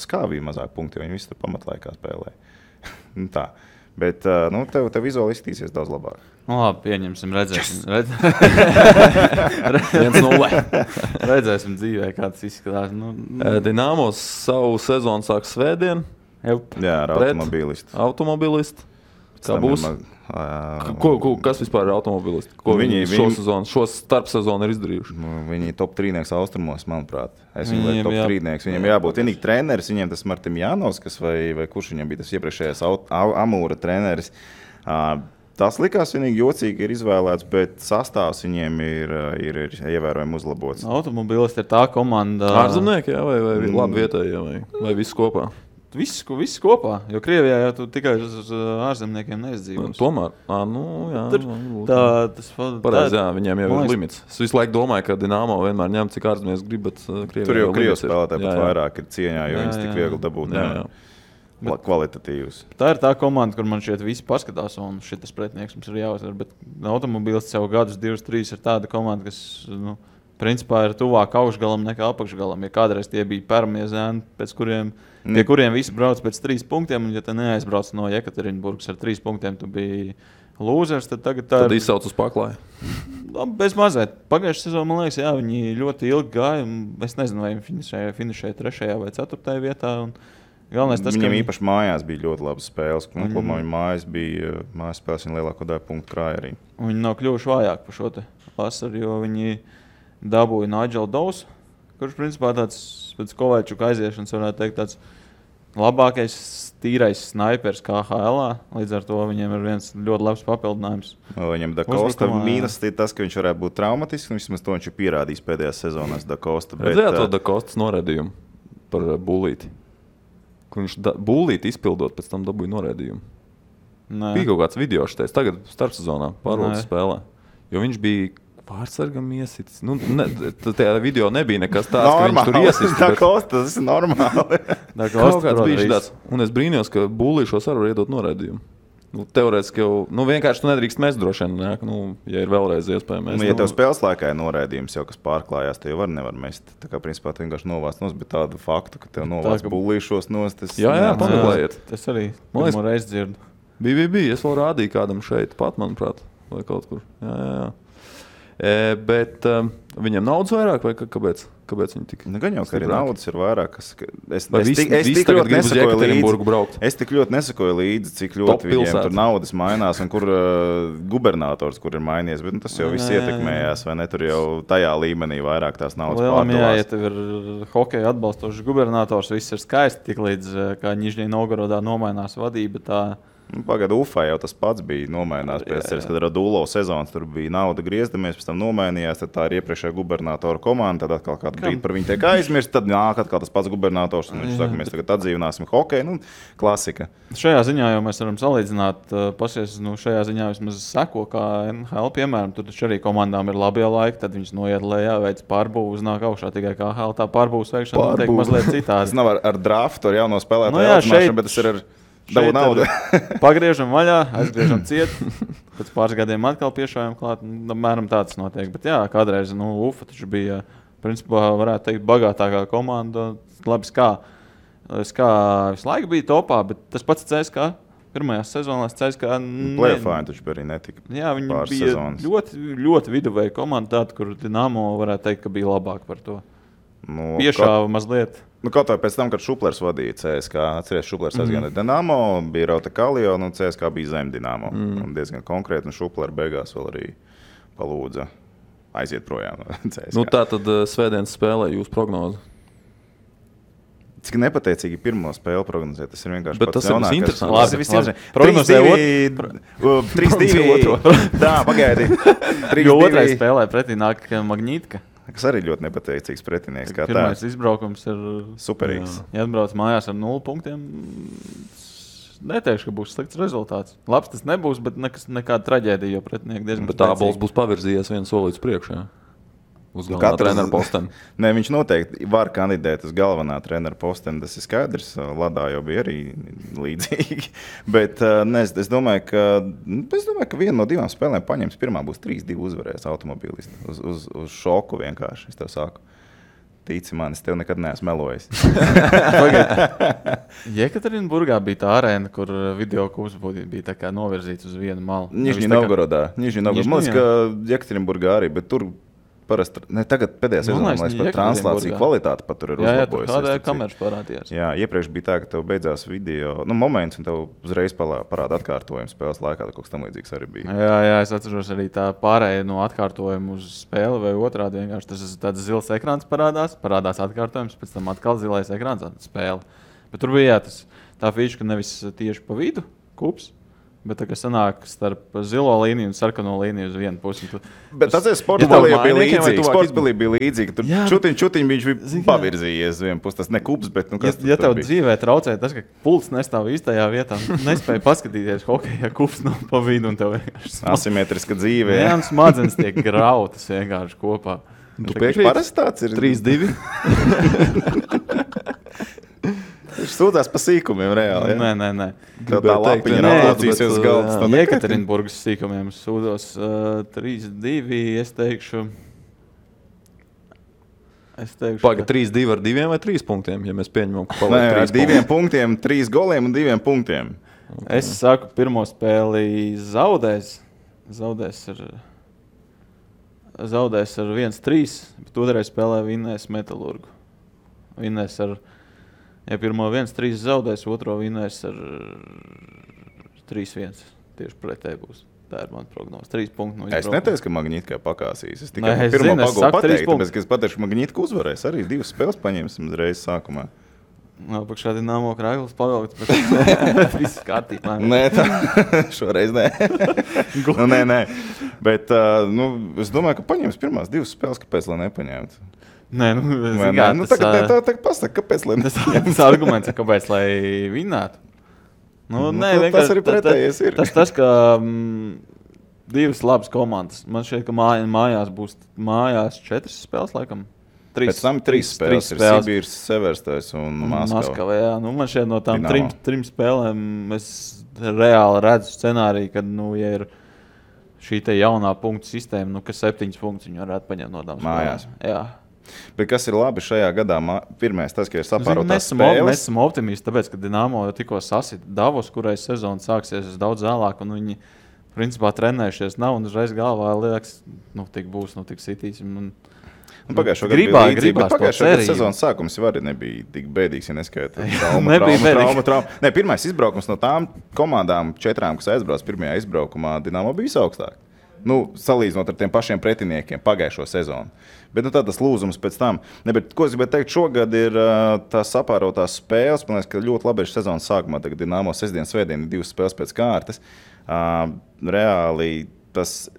skāvīja mazāk punkti, jo viņi visi tur pamatlaikā spēlē. Tā. Bet tev vizuāli izskatīsies daudz labāk. Labi, pieņemsim, redzēsim. 1-0. Redzēsim dzīvē, kā tas izskatās. Dinamo savu sezonu sāk svētdien. Jā, ar automobilistu. Kā būs? Kas vispār ir automobilisti? Ko viņi šo starpsezonu ir izdarījuši? Viņi top 3 austrumos, manuprāt. Es viņu lieku top 3. Viņam jābūt vienīgi treneris. Viņiem tas Martim Jānovs, vai kurš viņam bija tas iepriekšējais Amūra treneris. Tas likās vienīgi jocīgi ir izvēlēts, bet sastāvs viņiem ir ievērojami uzlabots. Automobilisti ir tā komanda... Ārzemnieki, vai labi vietējie, vai viss kopā? Viss kopā, jo Krievijā jau tu tikai uz ārzemniekiem neizdzīvos. Tomēr, pareizi, viņiem jau ir limits. Es visu laiku domāju, ka Dinamo vienmēr ņem, cik ārzemnieks grib, bet Krievijā tur jau Krievijas spēlētāji pat vairāk ir cieņā, jo viņas tik viegli dabūt kvalitatīvus. Tā ir tā komanda, kur man šeit visi paskatās, un šitas pretinieks mums ir jāuzvar, bet automobilists jau gadus 2-3 ir tāda komanda, kas, principā ir tuvāk augšgalam nekā apakšgalam. Ja kādreiz tie bija pirmie zēni, pie kuriem visi brauc pēc 3 punktiem, un ja te neaizbrauc no Jekaterinburgas ar 3 punktiem, tu biji lūzers, tad tagad tā ir... Tad izsauc uz paklāju. Bez mazēt. Pagājušajā sezonā, man liekas, viņi ļoti ilgi gāja, un es nezinu, vai viņi finišēja 3. vai 4. vietā, un galvenais tas, viņam īpaši mājās bija ļoti labas spēles, un kopumā viņa mājas spēles viņa lielāko daļu punktu krāja arī. Un viņi nav kļuvuši vājāk par šo te vasaru, jo viņi dabūja Nigel Dawes, kurš principā tāds pēc Kovaļčuka aiziešanas varētu teikt tāds labākais tīrais snaipers KHL-ā. Līdz ar to viņiem ir viens ļoti labs papildinājums. Viņam Da Costa mīnus ir tas, ka viņš varētu būt traumatisks, un vismaz to viņš ir pierādījis pēdējās sezonās Da Costa. Redzējāt to Da Costas noraidījumu par Bulīti? Kur viņš Bulīti izpildot, pēc tam dabūja noraidījumu. Bija kaut kāds video šitais, tagad starpsezonā pārvaldes spēlē. Jo viņš bija pārsargam iesits. Tajā video nebija nekas tāds, ka viņš tur iesits. Da Costa, tas ir normāli. Kaut kāds bija tāds. Un es brīnījos, ka Bulīšos arī var iedot noraidījumu. Teorētiski jau, vienkārši tu nedrīkst mest droši vien, ja ir vēlreiz iespēja mest. Ja tev spēles laikā ir noraidījums jau, kas pārklājās, te jau nevar mest. Tā kā principā tu vienkārši novāc nos, bet tādu faktu, ka tev novāc Bulīšos nos, tas... Jā, pameklējiet. Tas arī pirmo reizi dzirdu. Bija, es vēl rādīju kādam šeit pat, manuprāt, vai kaut kur. Jā. Bet viņiem naudas vairāk vai kāpēc viņi tik? Nu, gan jau, ka arī naudas ir vairāk. Es tik ļoti nesakoju līdzi. Es tik ļoti nesakoju līdzi, cik ļoti viņiem tur naudas mainās un kur gubernators, kur ir mainījies. Bet tas jau viss ietekmējās, vai ne? Tur jau tajā līmenī vairāk tās naudas pārdalās. Ja tev ir hokeja atbalstošs gubernators, viss ir skaisti, tik līdz kā Nižņī Novgorodā nomainās vadība, tā... Pagad Ufā jau tas pats bija nomainās pēc ceres, kad Radulo sezonas tur bija nauda griezdamies, pēc tam nomainījās, tad tā ir iepriekšējā gubernatora komanda, tad atkal kādu brīdi par viņu tiek aizmirst, tad nāk atkal tas pats gubernators, un viņš saka, mēs tagad atdzīvināsim hokeju, klasika. Šajā ziņā jau mēs varam salīdzināt, šajā ziņā vismaz seko, kā NHL, piemēram, tur taču arī komandām ir labie laiki, tad viņas noiet lejā, veic pārbūvu, uznāk augšā, tikai kā NHL tā pārbūvas veikšana notiek mazliet citādi. Tas nav ar draftu, ar jauno spēlētāju audzināšanu, bet tas ir ar dabu naudu. Pagriežam vaļā, aizgriežam ciet, pēc pāris gadiem atkal piešājam klāt, mēram tāds notiek. Bet jā, kādreiz, Ufa taču bija, principā, varētu teikt, bagātākā komanda. Labi, SKA visu laiku bija topā, bet tas pats CSKA. Pirmajās sezonās CSKA... Playoffāni taču arī netika. Jā, viņi bija ļoti, ļoti viduvēja komanda tāda, kur Dinamo varētu teikt, ka bija labāk par to. Piešāva mazliet. Kaut vai pēc tam, kad Šuplers vadīja CSKA, atceries, Šuplers aizgāja Dinamo, bija Rauta Kalio, un CSKA bija zem Dinamo. Un diezgan konkrēti, un Šuplers beigās vēl arī palūdza aiziet projām no CSKA. Tā tad svētdienas spēlē jūs prognozi. Cik nepateicīgi pirmo spēli prognozēt, tas ir vienkārši bet pats jaunākais. Labi, tas ir prognozēja 3-2. Tā, pagaidi. Jo otrai spēlē pretī nāk Magnītka. Kas arī ļoti nepateicīgs pretinieks. Pirmais izbraukums ir superīgs. Ja atbrauc mājās ar 0 punktiem, neteikšu, ka būs slikts rezultāts. Labs tas nebūs, bet nekāda traģēdija, jo pretinieki diezgan spēcīgi. Bet Ābols būs pavirzījies vienu solīdz priekšā. Uz galvenā trenera posteni. Nē, viņš noteikti var kandidēt uz galvenā trenera posteni. Tas ir skaidrs. Ladā jau bija arī līdzīgi. Bet es domāju, ka viena no 2 spēlēm paņems. Pirmā būs 3-2 uzvarēs automobilisti. Uz šoku vienkārši. Es tev saku. Tici man, es tev nekad neesmu melojis. Jekaterinburgā bija tā arēna, kur video kurs bija tā kā novirzīts uz vienu malu. Nižņī Novgorodā. Man liekas, ka Jekaterinburgā arī, bet tur parasti, tagad pēdējā sezonā, man liekas, par translāciju kvalitāti pat tur ir uzlabojusies. Jā, kādēļ kameras parādījās. Jā, iepriekš bija tā, ka tev beidzās video, moments, un tev uzreiz parāda atkārtojumu spēles laikā, kaut kas tam līdzīgs arī bija. Jā, es atceros arī tā pārēja no atkārtojuma uz spēli vai otrādi vienkārši. Tas tāds zils ekrāns parādās atkārtojums, pēc tam atkal zilais ekrāns spēle. Bet tur bija tā fīša, ka nevis tieši pa vidu kups, bet tā kā sanāk starp zilo līniju un sarkano līniju uz vienu pusi. Bet tas ir sportspēlē bija līdzīgi. Tur čutiņ viņš bija pavirzījies uz vienu pusi. Tas ne kups, bet kas ja tev dzīvē traucē tas, ka pults nestāv īstajā vietā, nespēja paskatīties hokeja kups no pa vidu un tev vienkārši asimetriska dzīve. Jā, smadzenes tiek grautas vienkārši kopā. Tu piekrīt? Parasti tāds ir 3-2. Viņš sūdzās pa sīkumiem reāli. Ja? Nē. Tev tā lapiņa nācīsies uz galdas. Jekaterinburgas sīkumiem sūdos 3-2, es teikšu... Paga 3-2 ar 2 vai 3 punktiem, ja mēs pieņemam, ka paliek 3 punkti. 2 punktiem, 3 goliem un 2 punktiem. Okay. Es saku, pirmo spēli zaudēs ar 1-3, bet otrreiz spēlē vinnēs Metalurgu. Vinnēs ar... Ja pirmo 1-3 zaudēs, otro vinnēs ar 3-1. Tieši pretēji būs. Tā ir mana prognoze. 3 punkti no izbraukuma. Es neteicu, ka Magnītka pakāsīs. Es tikai pirmo pagolu pateiktu, tāpēc, ka es pateikšu, ka Magnītka uzvarēs. Arī 2 spēles paņemsim uzreiz sākumā. Pakšā Dinamo Kraigls pavilkt, bet viss kārtībā. Nē, šoreiz nē. Nē. Bet es domāju, ka paņems pirmās 2 spēles, kāpēc lai nepaņemtu. Nē, tagad pasaka, kāpēc lai tas arguments ir, kāpēc lai vinnētu. Tas arī pretējies ir. Tas, ka 2 labas komandas. Man šķiet, ka mājās būs 4 spēles, laikam. Pēc tam 3 spēles ir Sibīrs, Severstais un Maskava. Jā, man šķiet no tām 3 spēlēm es reāli redzu scenāriju, kad, ja ir šī te jaunā punktu sistēma, ka 7 punktus viņi varētu paņemt no tām mājās. Jā. Bet kas ir labi šajā gadā? Pirmais tas, ka ir sapārotās spēles. Mēs esam optimisti, tāpēc, ka Dinamo jau tikko sasita Davos, kurai sezona sāksies daudz vēlāk, un viņi principā trenējušies nav, un uzreiz galvā liekas, tik būs, tik sitīsim. Pagājušo gadu bija līdzība, bet pagājušo gadu sezonas sākums jau arī nebija tik bēdīgs, ja neskaita trauma. Nē, pirmais izbraukums no tām komandām 4, kas aizbrauc pirmajā izbraukumā, Dinamo bija visaugstāk. Salīdzinot ar tiem pašiem pretiniekiem pagājušo sezonu. Bet tas lūzums pēc tam. Ko es gribēju teikt, šogad ir tās sapārotās spēles. Man liekas, ka ļoti labi ir sezonas sākumā. Tagad Dinamo sestdien, svētdien 2 spēles pēc kārtas. Reāli tas...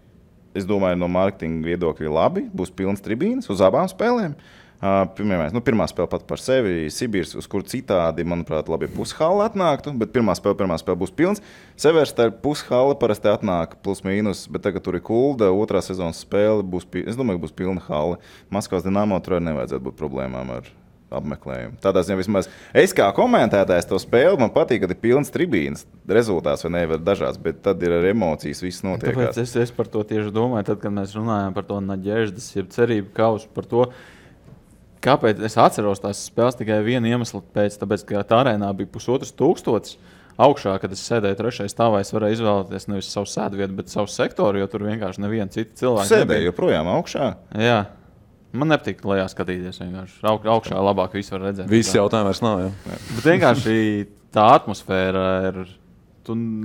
Es domāju, no mārketinga viedokļa labi. Būs pilns tribīnes uz abām spēlēm. Pirmā spēle pat par sevi Sibīrs, uz kur citādi, manuprāt, labi pushalla atnāktu, bet pirmā spēle būs pilns. Severstē pushalla parasti atnāk plus mīnus, bet tagad tur ir Kulda, otrā sezonas spēle es domāju, būs pilna halla. Maskavas Dinamo tur arī nevajadzētu būt problēmām ar apmeklējumu. Tādā ziņā vismaz es kā komentētājs to spēli, man patīk, kad ir pilns tribīnes. Rezultāts vai nevar dažāds, bet tad ir ar emocijas viss notiekās. Tāpēc es par to tieši domāju, tad, kad mēs runājam par to naģēždas, jeb cerību kausu, par to, kāpēc es atceros tās spēles tikai vienu iemeslu pēc, tāpēc, ka tā arēnā bija 1500 augšā, kad es sēdēju 3. stāvā, es varēju izvēlēties nevis savu sēdvietu, bet savu sektoru, jo tur vienkārši neviena cita cilvēka sēdēja joprojām augšā? Jā. Man nepatīk lejā skatīties. Augšā labāk visu var redzēt. Viss jautājums vairs nav. Jā. Bet vienkārši tā atmosfēra ir.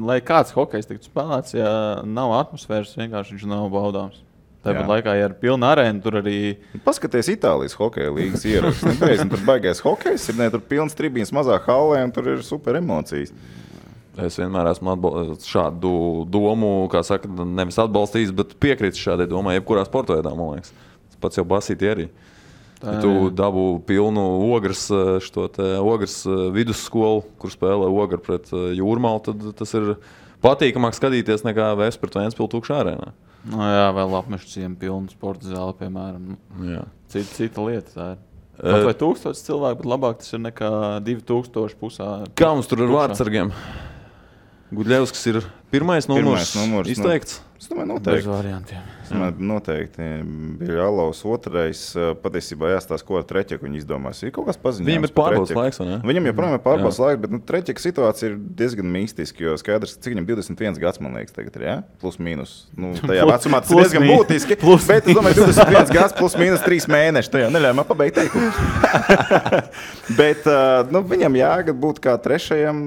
Lai kāds hokejs tiktu spēlēts, ja nav atmosfēras, vienkārši viņš nav baudāms. Tāpat laikā, ja ir pilna arēna, tur arī... Paskaties Itālijas hokeja līgas ierakstus. Tur baigais hokejs, tur pilns tribīns mazā hallē un tur ir super emocijas. Es vienmēr esmu šādu domu, kā saka, nevis atbalstījis, bet piekrītu šādai domai, jebkurā sporta veidā, man liekas. Pats jau basīti arī. Ja tu dabū pilnu ogras vidusskolu, kur spēlē ogra pret Jūrmalu, tad tas ir patīkamāk skatīties nekā Vēs pret Ventspili tukšā arēnā. Jā, vēl apmešu ciemu pilnu sporta zāli, piemēram. Cita lieta tā ir. Pat vai 1000 cilvēku, bet labāk tas ir nekā 2000 pusā. Kā mums tur ar vārdsargiem? Gudļevskis ir pirmais numurs izteikts? Es domāju, noteikti. Bez variantiem. Noteikti. Bija Jālaus otrais. Patiesībā jāstāsta, ko ar Treķeku viņi izdomās. Ir kaut kas paziņojums. Viņam ir pārbaudas laiks, vai ne? Viņam joprojām ir pārbaudas laiks, bet Treķeka situācija ir diezgan mistiska, jo skaidrs, cik viņam 21 gads, man liekas, tagad ir, jā? Plus mīnus. Tajā vecumā tas ir diezgan būtiski, bet es domāju, 21 gads plus mīnus 3 mēneši. Tajā neļauj man pabeigt teikumu. Bet viņam jāgad būt kā trešajam.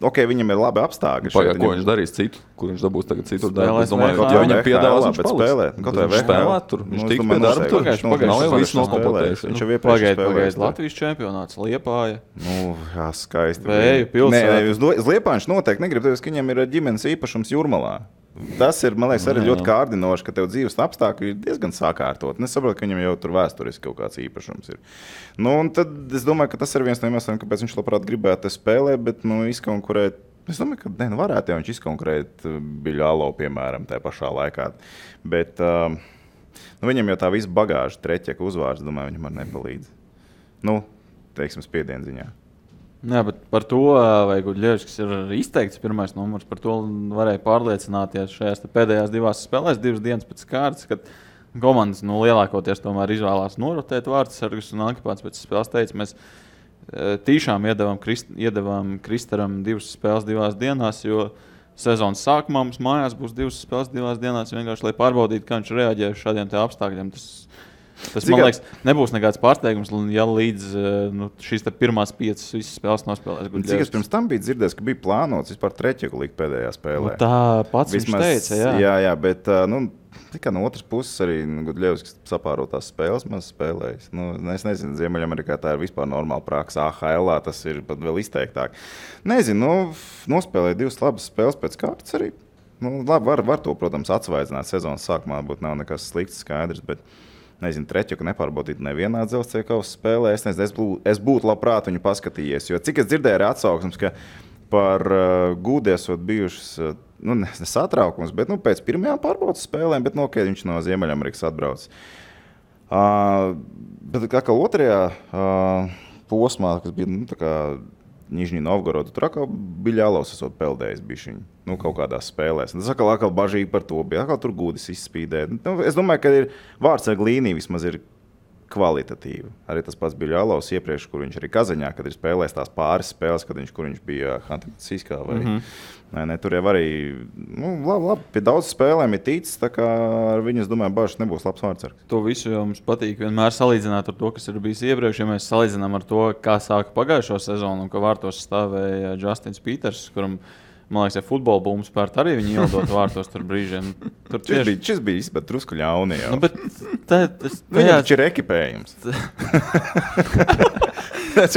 Viņam ir labi apstākļi. Ko viņš darīs citu? Kur viņš dabūs tagad citu darbu? Es domāju, ka viņam piedāvās viņš spēlēt. Viņš spēlēt tur. Viņš tiks pie darba tur. Nav jau viss nokompletējis. Viņš jau iepriekš spēlējis. Latvijas čempionāts, Liepāja. Jā, skaisti. Vēju pilsēta. Uz Liepāju viņš noteikti negrib, ka viņam ir ģimenes īpašums Jūrmalā. Tas ir, man liekas, arī ļoti kārdinoši, ka tev dzīves apstākļi ir diezgan sakārtot. Es saprotu, ka viņam jau tur vēsturiski kaut kāds īpašums ir. Un tad es domāju, ka tas ir viens no iemesliem, kāpēc viņš labprāt gribētu spēlēt, bet izkonkurēt. Es domāju, ka varētu jau viņš izkonkurēt Biļālo, piemēram, tajā pašā laikā. Bet viņam jau tā visa bagāža, Treķeka uzvārds, domāju, viņam arī nepalīdz. Teiksim, spiedienziņā. Jā, bet par to, vai Gudļevskis ir izteikts pirmais numurs, par to varēja pārliecināties šajās pēdējās 2 spēlēs, 2 dienas pēc kārtas, kad komandas lielākoties tomēr izvēlās norotēt vārdsargus, un Ankipāts pēc spēles teica, mēs tīšām iedevām Kristaram 2 spēles 2 dienās, jo sezonas sākumā mums mājās būs 2 spēles 2 dienās, vienkārši, lai pārbaudītu, kā viņš reaģē uz šādiem te apstākļiem. Tas man liekas, nebūs nekāds pārsteigums, ja līdz šīs pirmās 5 visas spēles nospēlēs. Cik es pirms tam biju dzirdējis, ka bija plānots vispār Treķeku likt pēdējā spēlē. Tā pats vismaz, viņš teica, jā. Jā, bet tikai no otras puses arī Gudļevskis sapārotās spēles maz spēlējis. Es nezinu, Ziemeļamerikā tā ir vispār normāla praksa. AHL tas ir pat vēl izteiktāk. Nezinu, nospēlēja 2 labas spēles pēc kārtas arī. Labi, var to, protams, atsvaidzināt sezonas sākumā, būtu nav nekas slikts skaidrs, bet nezinu, Treķeku nepārbaudīt nevienā dzelzceļa kausa spēlē. Es būtu labprāt viņu paskatījies, jo cik es dzirdēju arī atsauksmes, ka par Gūdi esot bijušas, nesatraukums, bet pēc pirmajām pārbaudas spēlēm, bet viņš no Ziemeļamerikas atbrauc. Bet kā otrajā posmā, kas bija tā kā Nižņī Novgorodu, tur atkal Biļālovs esot peldējis bišķiņu, kaut kādās spēlēs. Tas atkal bažīgi par to bija, atkal tur Gūdis izspīdē. Es domāju, ka ir vārdsarga līnija vismaz ir kvalitatīvi. Arī tas pats bija Ļalovs iepriekš, kur viņš arī Kazaņā, kad ir spēlējis tās pāris spēles, kur viņš bija Hantiskā vai ne, tur jau arī, labi, pie daudz spēlēm ir ticis, tā kā ar viņu, es domāju, Bažs nebūs labs vārdsargs. To visu jau mums patīk vienmēr salīdzināt ar to, kas ir bijis iepriekš, ja mēs salīdzinām ar to, kā sāka pagājušo sezonu un ka vārtos stāvēja Justins Peters, kuram, man liekas, ja futbola būmu spērt arī viņi ielidot vārtos tur brīžiem. Tur Šis bija izbat drusku ļauni jau. Nu, bet Viņam taču ir ekipējums. Tas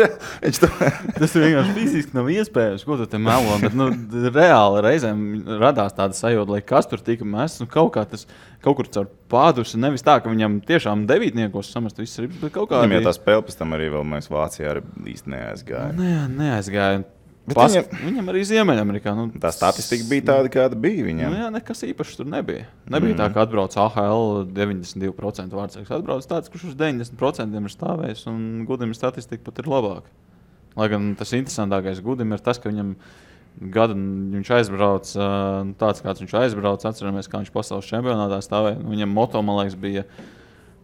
vienkārši fiziski nav iespējams, ko tu te melo, bet reāli reizēm radās tāda sajūta, lai kas tur tika mests, kaut kur caur pādusi, nevis tā, ka viņam tiešām devītniekos samest viss ribs, bet kaut kā... Viņam jau tā spēle pēc tam arī vēl mēs Vācijā arī īsti neaizgāja. Neaizgāja. Viņam arī Ziemeļamerikā. Tā statistika bija tāda, kāda bija viņam. Nekas īpašs tur nebija. Nebija tā, ka atbrauc AHL 92% vārdsargs. Atbrauc tāds, kurš uz 90% ir stāvējis, un Gudim statistika pat ir labāka. Lai gan tas interesantākais Gudim ir tas, ka viņam gadu viņš aizbrauc, tāds kāds viņš aizbrauc, atceramies, kā viņš pasaules čempionātā stāvēja. Viņam moto, man liekas, bija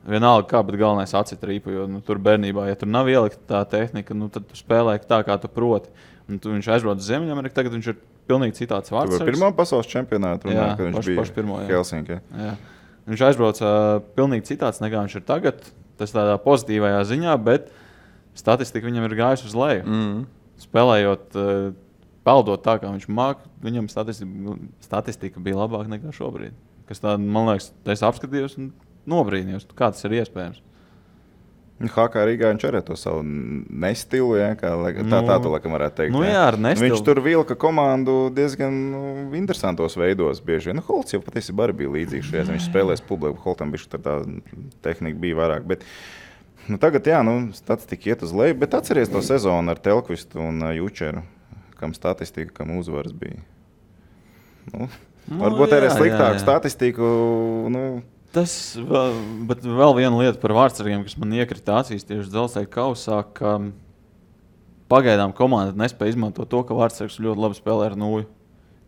vienalga kā, bet galvenais acit rīpu, jo tur bērnībā, ja tur nav ielikta tā tehnika, tad tu spēlē tā, kā tu proti. Un viņš aizbrauc uz Ziemeļameriku, tagad viņš ir pilnīgi citāds vārdsargs. Tu pirmā pasaules čempionāta runā, kad viņš bija pirmo, Helsinkī. Viņš aizbrauc pilnīgi citāds, nekā viņš ir tagad. Tas tādā pozitīvajā ziņā, bet statistika viņam ir gājusi uz leju. Spēlējot, peldot tā, kā viņš māk, viņam statistika bija labāka nekā šobrīd. Kas tā, man liekas, es apskatījos un nobrīnījos, kā tas ir iespējams. HK Rīgā viņš arī to savu nestilu, kā tā tu laikam varētu teikt. Ar nestilu. Viņš tur vilka komandu diezgan interesantos veidos bieži. Holts jau patiesībā arī bija līdzīgs šajās. Viņš spēlēs publiku, Holtam bišķi tā tehnika bija vairāk. Bet, tagad, statistika iet uz leju, bet atceries to sezonu ar Telkvistu un Jučeru, kam statistika, kam uzvaras bija. Varbūt arī sliktāku statistiku, Bet vēl viena lieta par vārdsargiem, kas man iekrita acīs tieši Dzelzceļa kausā, ka pagaidām komanda nespēja izmantot to, ka vārdsargs ļoti labi spēlē ar nūju.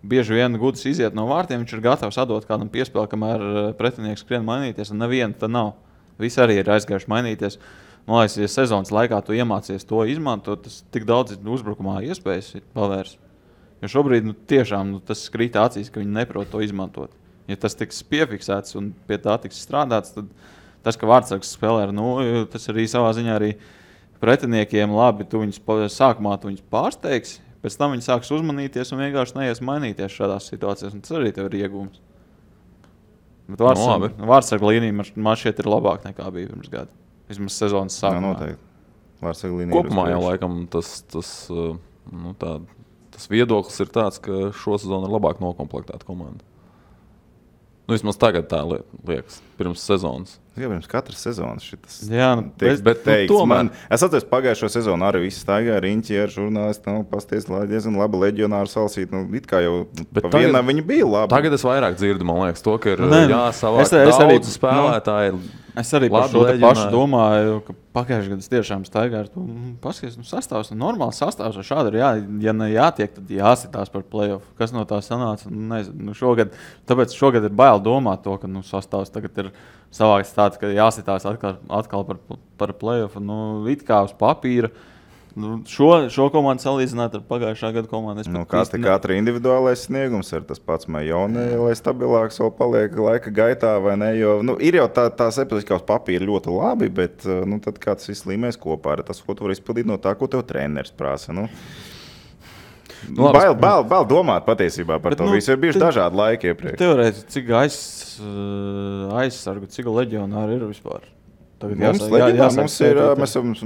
Bieži vien Gudis iziet no vārtiem, viņš ir gatavs atdot kādam piespēli, kamēr pretinieks skrien mainīties, un neviena tā nav. Visi arī ir aizgājuši mainīties. Man liekas, ja sezonas laikā tu iemācies to izmantot, tas tik daudz uzbrukumā iespējas pavērs. Jo šobrīd tiešām tas krīt acīs, ka viņi neprot to izmantot. Ja tas tiks piefiksēts un pie tā tiks strādāts, tad tas, ka vārdsargs spēlē ar nūju, tas arī savā ziņā arī pretiniekiem labi, sākumā tu viņus pārsteigs, pēc tam viņi sāks uzmanīties un vienkārši neies mainīties šādās situācijās, un tas arī tev ir iegūms. Bet vārdsarga līnija man šķiet ir labāk nekā bija pirms gada. Vismaz sezonas sākumā. Vārdsarga līnija kopumā jau laikam tas viedoklis ir tāds, ka šo sezonu ir labāk nokomplektēta komanda. Vismaz tagad tā liekas, pirms sezonas. Jā, pirms katras sezonas šitas bet teikts. Es atceros pagājušo sezonu arī visi staigāja riņķi ar žurnālisti, pasties, diezgan labi leģionāru salasīt. It kā jau pa vienam viņi bija labi. Tagad es vairāk dzirdu, man liekas, to, ka ir jāsavāk daudz spēlētāji. Es arī par šo pašu domāju, ka pagājušajā gadā tiešām staigā ar to paskaties, sastāvs, normāls sastāvs, šādi ir ja ne jātiek, tad jāsitās par play-off. Kas no tā sanāca? Nezinu, tāpēc šogad ir bail domāt to, ka sastāvs tagad ir savāks tāds, ka jāsitās atkal par play-off. It kā uz papīra. Šo komandu salīdzināt ar pagājušā gada komandu. Katra individuālais sniegums ir tas pats Majone, lai stabilāks vēl paliek laika gaitā, vai ne? Jo, ir jau tās epizodika uz papīra ļoti labi, bet tad kāds viss līmēs kopā ar tas, ko tu vari izpildīt no tā, ko tev treneris prasa. Bail domāt patiesībā par to visu. Ir bijuši dažādi laiki iepriekš. Teorētiski, cik aizsargu, cik leģionāri ir vispār? Mums ir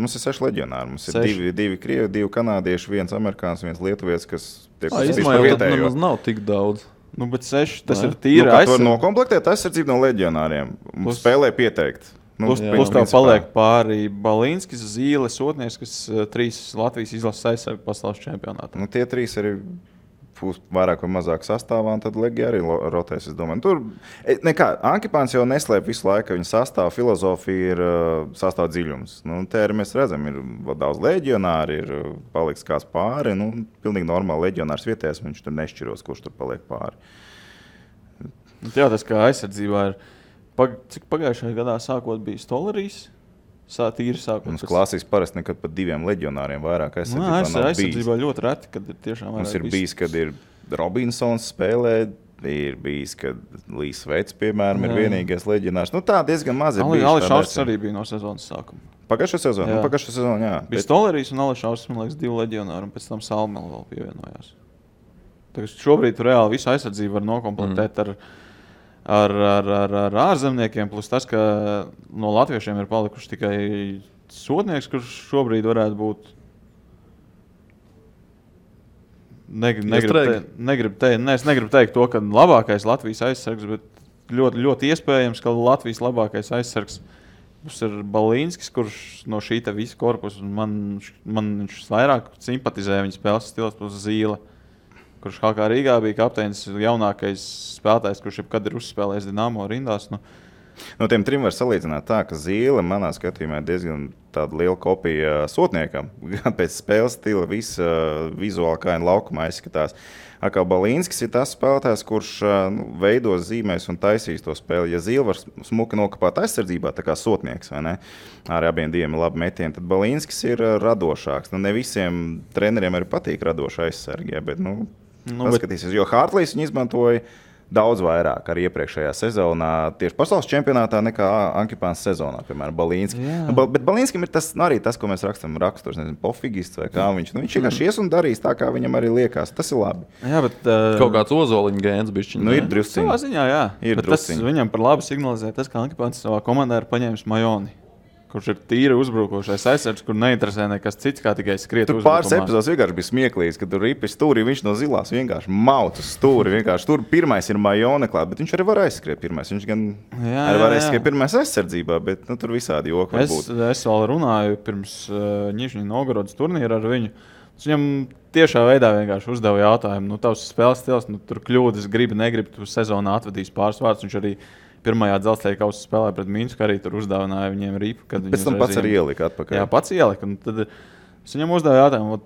6 leģionāri. Mums ir 2 krievi, 2 kanādieši, 1 amerikāns, 1 lietuvietis, kas tiek vietējo. Tas nav tik daudz. Bet 6, tas ir tīri aizsardzība. Tur nokomplektēt aizsardzību no leģionāriem. Spēlē pieteikt. Plus tev paliek pāri Balīnskis, Zīle, Sotnieks, kas 3 Latvijas izlases aizsargu pasaules čempionātā. Tie 3 arī vairāk vai mazāk sastāvā, un tad Legija arī rotēs, es domāju. Tur, Ankipāns jau neslēp visu laiku, viņa sastāva filozofija ir sastāv dziļums. Te arī mēs redzam, ir daudz leģionāri, ir paliks kāds pāri, pilnīgi normāli leģionārs vietējais, viņš tur nešķiros, kurš tur paliek pāri. Jā, tas kā aizsardzībā ir, cik pagājušajā gadā sākot bija Stolerijs, tīri sākot. Mums klasiski parasti nekad pat 2 leģionāriem vairāk aizsardzībā nav bijis. Aizsardzībā ļoti reti, kad ir tiešām vairāk. Mums ir bijis, kad ir Robinsons spēlē, ir bijis, kad Līs Veits, piemēram, ir vienīgais leģionārs. Nu tā diezgan maz ir bijis. Ališauskas arī bija no sezonas sākuma. Pagājušā sezona, jā. Bija Stolerijs un Ališauskas, man liekas, 2 leģionāri, un pēc tam Salmela vēl pievienojās. Tagad šobrīd tu reāli visu aizsardzību var nokomplektēt ar ārzemniekiem, plus tas, ka no latviešiem ir palikuši tikai sodnieks, kurš šobrīd varētu būt. Es negribu teikt to, ka labākais Latvijas aizsargs, bet ļoti, ļoti iespējams, ka Latvijas labākais aizsargs būs ir Balīnskis, kurš no šī te visa korpusa, man viņš vairāk simpatizē viņa spēles stils plus Zīle, kurš HK Rīgā bija kapteinis, jaunākais spēlētājs, kurš jebkad ir uzspēlējis Dinamo rindās. No tiem 3 var salīdzināt tā, ka Zīle manā skatījumā ir diezgan tāda liela kopija sotniekam. Gan pēc spēles stila visa vizuāli kā laukumā izskatās. Kā Balīnskis ir tas spēlētājs, kurš veidos, zīmēs un taisīs to spēli. Ja Zīle var smuki nokapāt aizsardzībā, tā kā sotnieks, vai ne? Ar abiem diviem labi metieni, tad Balīnskis ir radošāks. Ne visiem treneriem arī patīk radoši aizsargie, bet paskatīsies, jo Hartlīs viņi izmantoja daudz vairāk arī iepriekšējā sezonā, tieši pasaules čempionātā nekā Ankipāns sezonā, piemēram, Balīnski. Bet Balīnskim ir arī tas, ko mēs raksturs, nezinu, pofigists vai kā viņš. Viņš vienkārši ies un darīs tā, kā viņam arī liekas. Tas ir labi. Jā, bet kaut kāds ozoliņa gēns bišķiņ. Ir drusciņi. Savā ziņā, jā. Ir drusciņi. Viņam par labu signalizē tas, ka Ankipāns savā komandā ir paņēmis Majoni, kurš ir tīri uzbrukošais aizsargs, kur neinteresē nekas cits, kā tikai skriet uzbrukumā. Tur pāris epizodes vienkārši bija smieklīgs, kad tur ripi stūri, viņš no zilās vienkārši maut uz stūri. Tur pirmais ir Majone klāt, bet viņš arī var aizskriet pirmais. Viņš gan arī var aizskriet pirmais aizsardzībā, bet tur visādi joki var būt. Es vēl runāju pirms Nižņi Novgorodas turnīra ar viņu. Viņam tiešā veidā vienkārši uzdeva jautājumu, tavs spēles stils, tur kļūdas, negribi, tu sezonā atvedīs pāris vārdus. Viņš arī pirmajā dzelzceļa kausa spēlē pret Minsku, arī tur uzdāvināja viņiem ripu. Pēc tam pats arī ielika atpakaļ. Jā, pats ielika. Tad es viņam uzdeva jautājumu,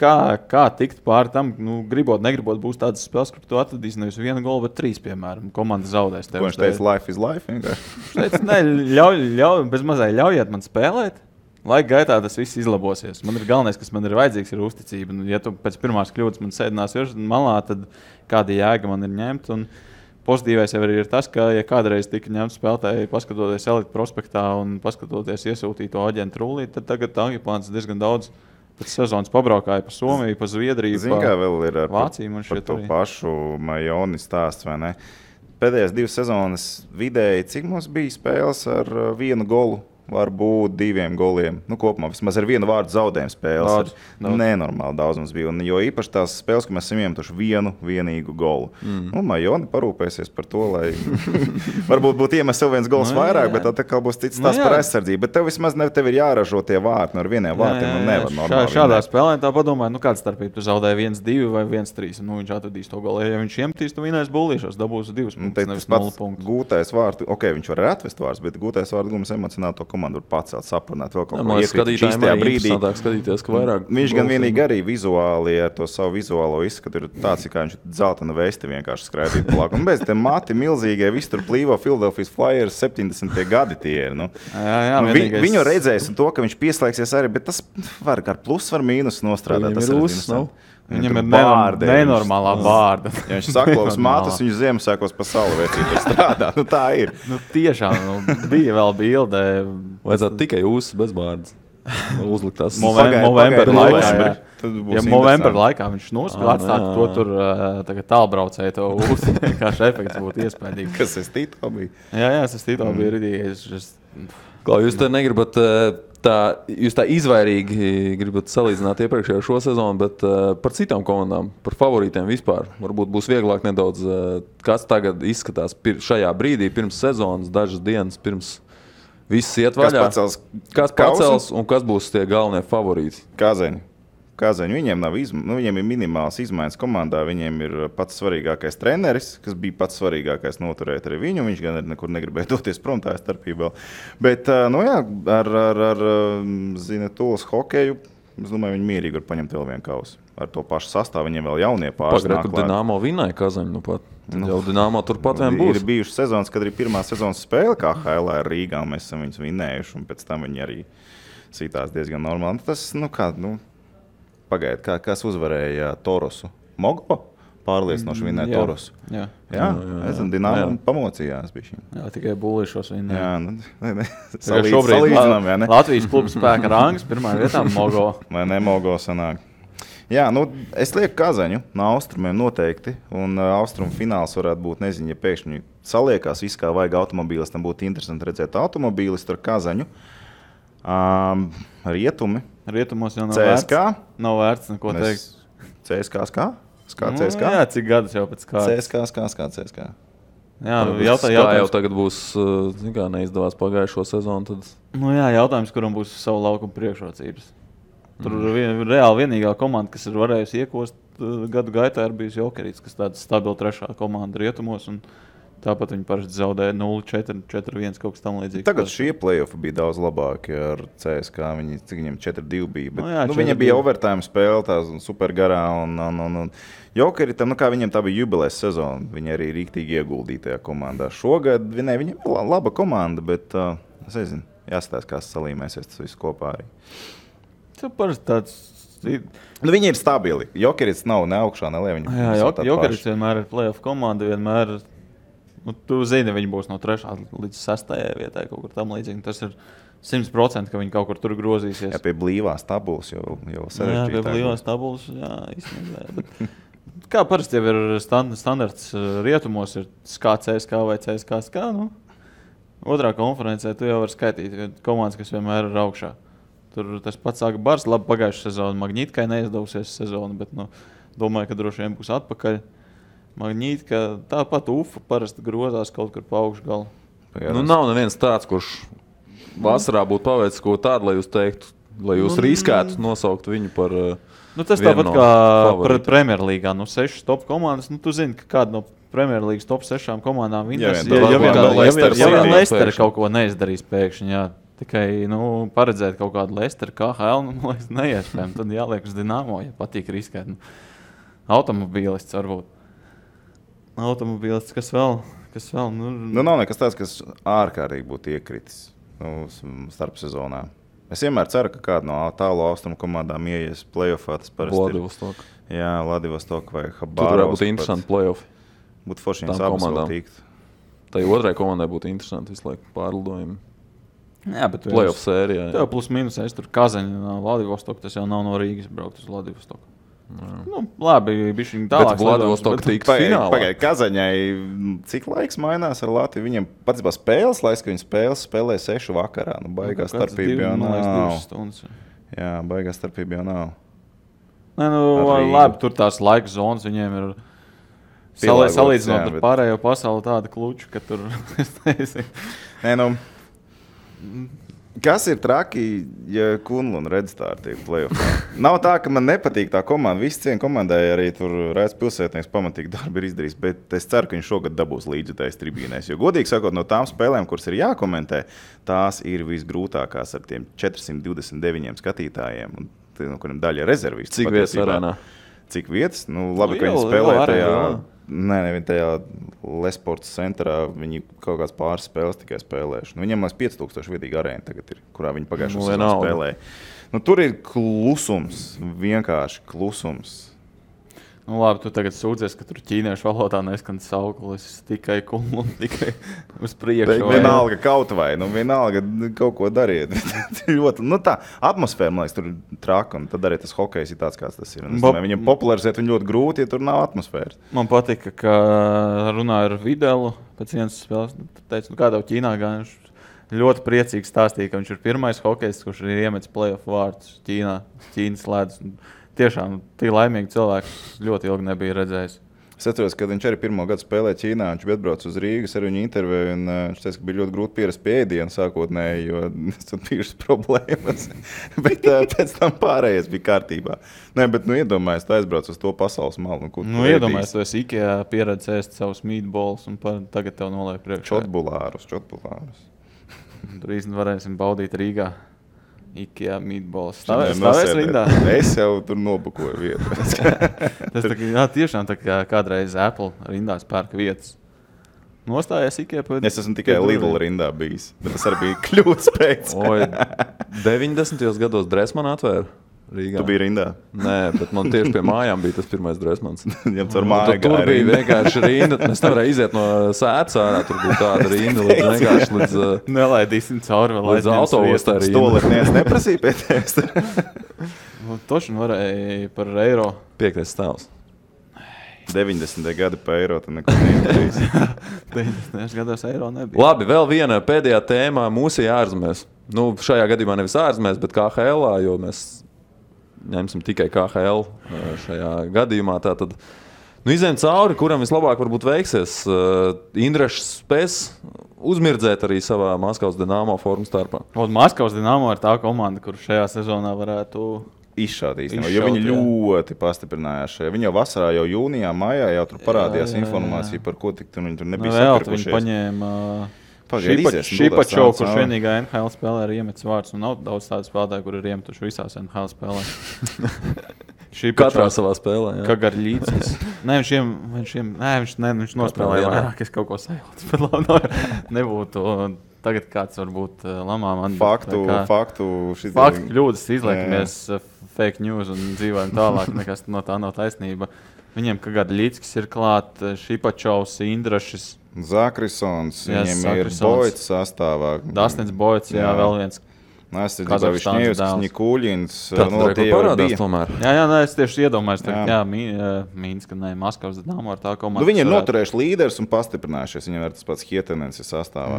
kā tikt pāri tam, gribot, negribot, būs tādas spēles, kur tu atvedīsi nevis 1 golu, bet 3, piemēram. Komanda zaudēs tev. Ko viņš teica, life is life vienkārši? Viņš teica, bez mazai ļaujiet man spēlēt. Laika gaitā tas viss izlabosies. Man ir galvenais, kas man ir vajadzīgs, ir uzticība. Ja tu pēc pirmās kļūdas man sēdinās malā, tad kāda jēga man ir ņemt. Un pozitīvais jau ir tas, ka, ja kādreiz tika ņemts spēlētāji, paskatoties Elite prospektā un paskatoties iesūtīto aģentu rullī, tad tagad Ankipāns diezgan daudz pēc sezonas pabraukāja pa Somiju, pa Zviedriju, pa vēl ir Vāciju. Par to pašu Majoni stāsts, vai ne? Pēdējās 2 sezonas vidēji, cik mums bija spēles ar 1 golu? Varbūt 2 goliem. Kopumā vismaz ar 1 vārdu zaudējumu spēles. Nenormāli daudz mums bija. Un, jo īpaši tās spēles, ka mēs esam iemetuši vienīgu golu. Majoni parūpēsies par to, lai varbūt būtu iemest vēl 1 gols vairāk, bet tad būs cits tās par aizsardzību. Bet tev vismaz tev ir jāražo tie vārti no ar 1 vārtiem. Nevar normāli. Šādā spēlē tā padomāja, kāda starpība tu zaudēji 1-2 vai 1-3. Viņš atradīs to golu. Ja viņš iemetīs, tu vinēs bullīšos, dabūs 2 punktus, nevis 0 punktus. Gūtais vārtu, viņš var atvest vārds, bet gūtais vārdu gums emocionāli to komandu var pacelt, saprunāt vēl kaut ko iekrīt šīstajā brīdī. Skatīties, ka vairāk viņš gan vienīgi arī vizuāli ar to savu vizuālo izskatu ir tāds, kā viņš dzeltena vesti vienkārši skraidīt plāk. Un bez te mati milzīgie, visi tur plīvo Philadelphia Flyers 70. gadi tie ir. Viņu redzēs un to, ka viņš pieslēgsies arī, bet tas var ar plus, var mīnus nostrādāt. Tas ir Viņam ir nenormālā bārda. Ja viņš saklos matus, viņš Ziemassvētkos pa salu vecību strādā. Tā ir. Tiešām, bija vēl bilde. Vajadzētu tikai uzs bez bārdas. Uzlikt tās Movember laikā. Ja Movember laikā viņš atstāt to tur tālbraucēju to uzs, vienkārši efekts būtu iespējīgi. Kas es Tito bija? Jā, es Tito biju ridījies. Klau, jūs te negribat jūs tā izvairīgi gribat salīdzināt iepriekšējo šo sezonu, bet par citām komandām, par favorītiem vispār. Varbūt būs vieglāk nedaudz, kas tagad izskatās šajā brīdī, pirms sezonas, dažas dienas pirms viss iet vaļā. Kas pacels un kas būs tie galvenie favorīti? Kāzeņi. Viņiem ir minimāls izmaiņas komandā. Viņiem ir pats svarīgākais treneris, kas bija pats svarīgākais noturēt arī viņu. Viņš gan nekur negribēja doties prom, tā ir starpība vēl. Bet, ar Zinetulas hokeju Es domāju, viņi mierīgi var paņemt vēl vienu kausu. Ar to pašu sastāvu viņiem vēl jaunie pāris nāk Pagaidu, Dinamo vinēja Kazaņu, nu pat. Jau Dinamo turpat vien būs. Ir bijušas sezonas, kad arī pirmā sezonas spēle KHL ar Rīgā, un mēs esam viņus vinējuši, un pēc tam viņi arī sītās diezgan normāli. Tas, pagaidu, kas uzvarēja Torosu? Mogo? Pārliecinoši vinēja Torosu. Jā. Es zinu, Dinamo pamocījās bišķi. Jā, tikai būlīšos vinēja. Jā, Salīdzinām, jā, ne? Latvijas klubu spēka rangs, pirmā vietā Mogo. Vai ne, Mogo sanāk. Jā, es lieku Kazaņu no austrumiem noteikti, un austrumu fināls varētu būt, nezinu, ja pēkšņi saliekās viss, kā vajag automobīlistam, būtu interesanti redzēt automobīlistu ar Kazaņu. Rietumi. Rietumos jau nav CSK. Nav vērts neko teikt. CSK skā? Skā CSK? Jā, cik gadus jau pēc kārtas. CSK. Jā, jautājums. Jau tagad būs, kā neizdevās pagājušo sezonu, tad... Jautājums, kuram būs savu laukumu priekšrocības. Tur reāli vienīgā komanda, kas ir varējusi iekost gadu gaitā, ir bijusi Jokerīts, kas tāda stabila trešā komanda rietumos, un tāpat viņi parasti zaudēja 0-4, 4-1, kaut kas tam līdzīgi. Tagad šie play-offi bija daudz labāki ar CSK, cik viņiem 4-2 bija, bet viņiem 4-2. bija overtime spēle, tā super garā, un Jokerītam, kā viņiem tā bija jubilēs sezona, viņi arī rīktīgi ieguldīja tajā komandā. Šogad viņiem ir laba komanda, bet es nezinu, jāskatās, kā salīmēsies tas viss kopā arī. Tas parasti tāds... Viņi ir stabili. Jokerīts nav ne augšā, ne lejā. Jokerīts vienmēr ir play-off komanda, vienmēr... Tu zini, viņi būs no 3. līdz 6. vietai kaut kur tam līdzīgi. Tas ir 100%, ka viņi kaut kur tur grozīsies. Jā, pie blīvās tabulas jau sarežģītāk. Jā, pie blīvās tabulas, jā, īstenībā. Bet kā parasti jau ir standarts rietumos, ir CSK vai CSK. Otrā konferencē tu jau vari skaitīt komandas, kas vienmēr ir augšā. Tur tas pats sāka Bars, labi pagājušā sezona. Magnītkai neizdevusies sezona, bet domāju, ka droši vien būs atpakaļ. Magnītka, tāpat Ufa parasti grozās kaut kur pa augšu galu. Nav neviens tāds, kurš vasarā būtu paveicis ko tādu, lai jūs teiktu, lai jūs riskētu nosaukt viņu par tas tāpat kā Premjerlīgā, 6 top komandas. Tu zini, ka kāda no Premjerlīgas top 6 komandām viņas, ja Leicester kaut ko neizdarīs pēkšņi, jā. Tikai paredzēt kaut kādu Leicester, KHL, neiespējami. Tad jāliek uz Dinamo, ja patīk riskēt. Automobīlists varbūt. Automobīlists, kas vēl? Nav nekas tāds, kas ārkārtīgi būtu iekritis starp sezonā. Es vienmēr ceru, ka kāda no tālu austrumu komandām ieies play-offā. Tas parasti Vladivostok. Jā, Vladivostok vai Habārovs. Tur varētu būt interesanti play-offi. Būtu forši viņas abas vēl tīkt. Tai otrai komandai būtu interesanti visu laiku pārlidojumi. Jā, bet play-off sērijā. Tev plus mīnus, es tur Kazaņa no Vladivostok, tas jau nav no Rīgas braukt uz Vladivostok. Labi, bišķiņ tālāk. Bet Vladivostok tikt finālā. Pagaid, Kazaņai cik laiks mainās ar Latviju? Viņiem patiesībā spēles laiks, ka viņi spēlē 6 vakarā. Baigās starpība jau nav. Jā, baigās starpība jau nav. Labi, tur tās laika zonas viņiem ir salīdzinot ar pārējo pasauli tāda kluča, ka tur es nezinu. Kas ir traki, ja Kunlun Redstar tiek play-offā? Nav tā, ka man nepatīk tā komanda. Visi cien komandai arī tur Raids Pilsētnieks pamatīgi darbi ir izdarījis, bet es ceru, ka viņš šogad dabūs līdzjutējs tribīnēs. Jo godīgi sakot, no tām spēlēm, kuras ir jākomentē, tās ir visgrūtākās ar tiem 429 skatītājiem, un kuriem daļa rezervisti. Cik vietas arēnā? Cik vietas? Labi, ka viņi spēlē tajā... Nē, tajā Lesports centrā viņi kaut kāds pāris spēles tikai spēlējuši. Viņiem 5000 vietīgi arēna tagad ir, kurā viņi pagājušo sezonu spēlēja. Tur ir klusums, vienkārši klusums. Labi, tu tagad sūdzies, ka tur ķīniešu valodā neskan sauklis tikai Kunlun, tikai uz priekšu. Vienalga kaut vai, vienalga kaut ko dariet. Ļoti, tā atmosfēra, man liekas, tur ir traka, un tad arī tas hokejs ir tāds, kāds tas ir. Viņam popularizēt viņu ļoti grūti, ja tur nav atmosfēras. Man patika, ka runāju ar Videlu pēc vienas spēles. Teicu, kā tev Ķīnā gan viņš ļoti priecīgi stāstīja, ka viņš ir pirmais hokejs, kurš ir iemetis play-off vārdus Ķīnas ledus. Tiešām, tie laimīgi cilvēki ļoti ilgi nebija redzējis. Es atceros, kad viņš arī pirmo gadu spēlēja Ķīnā, viņš bija atbraucis uz Rīgas ar viņu interviju, un viņš teica, ka bija ļoti grūti pierast pie ēdienu sākotnēji, jo tur bijušas problēmas. Bet pēc tam pārējais bija kārtībā. Nē, bet iedomājies, tu aizbrauc uz to pasaules malu. Iedomājies, tu esi Ikea pieredzi ēst savus meatballs, un tagad tev noliek priekšā. Čotbulārus. Tur īstenībā varēsim baudīt Rīgā. Ikea meatballs. Stāvēs rindā? Es jau tur nobukoju vietu. Tas tiešām tā kā kādreiz Apple rindās pērk vietas. Nostājies Ikea pēc... Es esmu tikai Lidl rindā bijis, bet tas arī bija kļūdas pēc. 90. gados Dressmann atvēra Rīgā. Tu biji rindā? Nē, bet man tieši pie mājām bija tas pirmais Dressmanns. Tur bija vienkārši rinda. Es nevarēju iziet no sētas ārā. Tur bija tāda rinda līdz Nelaidīsim cauri vēl līdz autoostā rinda. Stoletnieks neprasīja pie tevis. Toši varēja par eiro. 5. stāvs. 90. gadi pa eiro, tad neko neizdarīs. 90. gados eiro nebija. Labi, vēl viena pēdējā tēmā mūsu ārzemēs. Nu, šajā gadījumā nevis ārzemēs, bet KHL, jo mēs ņemsim tikai KHL šajā gadījumā. Tātad, izējam cauri, kuram vislabāk varbūt veiksies. Indrašs spēs uzmirdzēt arī savā Maskavas Dinamo formu starpā. Maskavas Dinamo ir tā komanda, kur šajā sezonā varētu izšaut īstenībā, jo viņi ļoti pastiprinājās šajā. Viņi jau vasarā, jau jūnijā, maijā jau tur parādījās informācija, par ko tik viņi tur nebija sakarpušies. Viņi paņēma Šipačovu, kurš vienīgā NHL spēlē ir iemetis vārds, un nav daudz tādu spēlētāju, kur ir iemetuši visās NHL spēlē. Katrā savā spēlē, jā. Kagarļīcis. Viņš nospēlēja vairāk, es kaut ko sajūtu, bet labi, nebūtu tagad kāds varbūt lamā man. Faktu kļūdas izliekamies fake news un dzīvojam tālāk, nekas no tā nav taisnība. Viņiem Kagarļīcis ir klāt, Šipačovs, Indrašs, Zakrisons, viņiem ir Boits sastāvā. Dastins Boits, jā, vēl viens. Višņievskis, Nikuļins. Tāds parādās tomēr. Jā, es tieši iedomājos, Mīnska, Maskavas Dinamo ar tā komandu. Viņi ir noturējuši līderis un pastiprinājušies. Viņiem ir tas pats Hietenens sastāvā.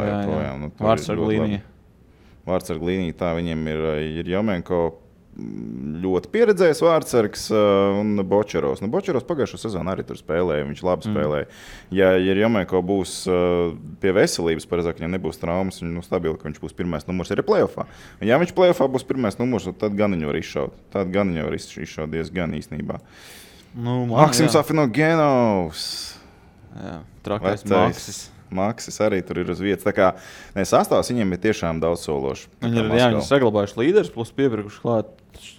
Vārtsarg līnija, tā viņiem ir Jomenko. Ļoti pieredzējis vārtsargs un Bočerovs. Bočerovs pagājušo sezonu arī tur spēlēja, viņš labi spēlēja. Ja Jomenko būs pie veselības, pareizāk, viņam nebūs traumas, viņš stabili, ka viņš būs pirmais numurs arī play-offā. Ja viņš play-offā būs pirmais numurs, tad gan viņu var izšaut. Tad gan viņu var izšaut diezgan īstenībā. Maksims Afinogenovs. Jā, trakais Maksis arī tur ir uz vietas. Tā kā sastāvs viņiem ir tiešām daudz sološi. Viņi ir saglabājuši līderis, plus piepirkuši klāt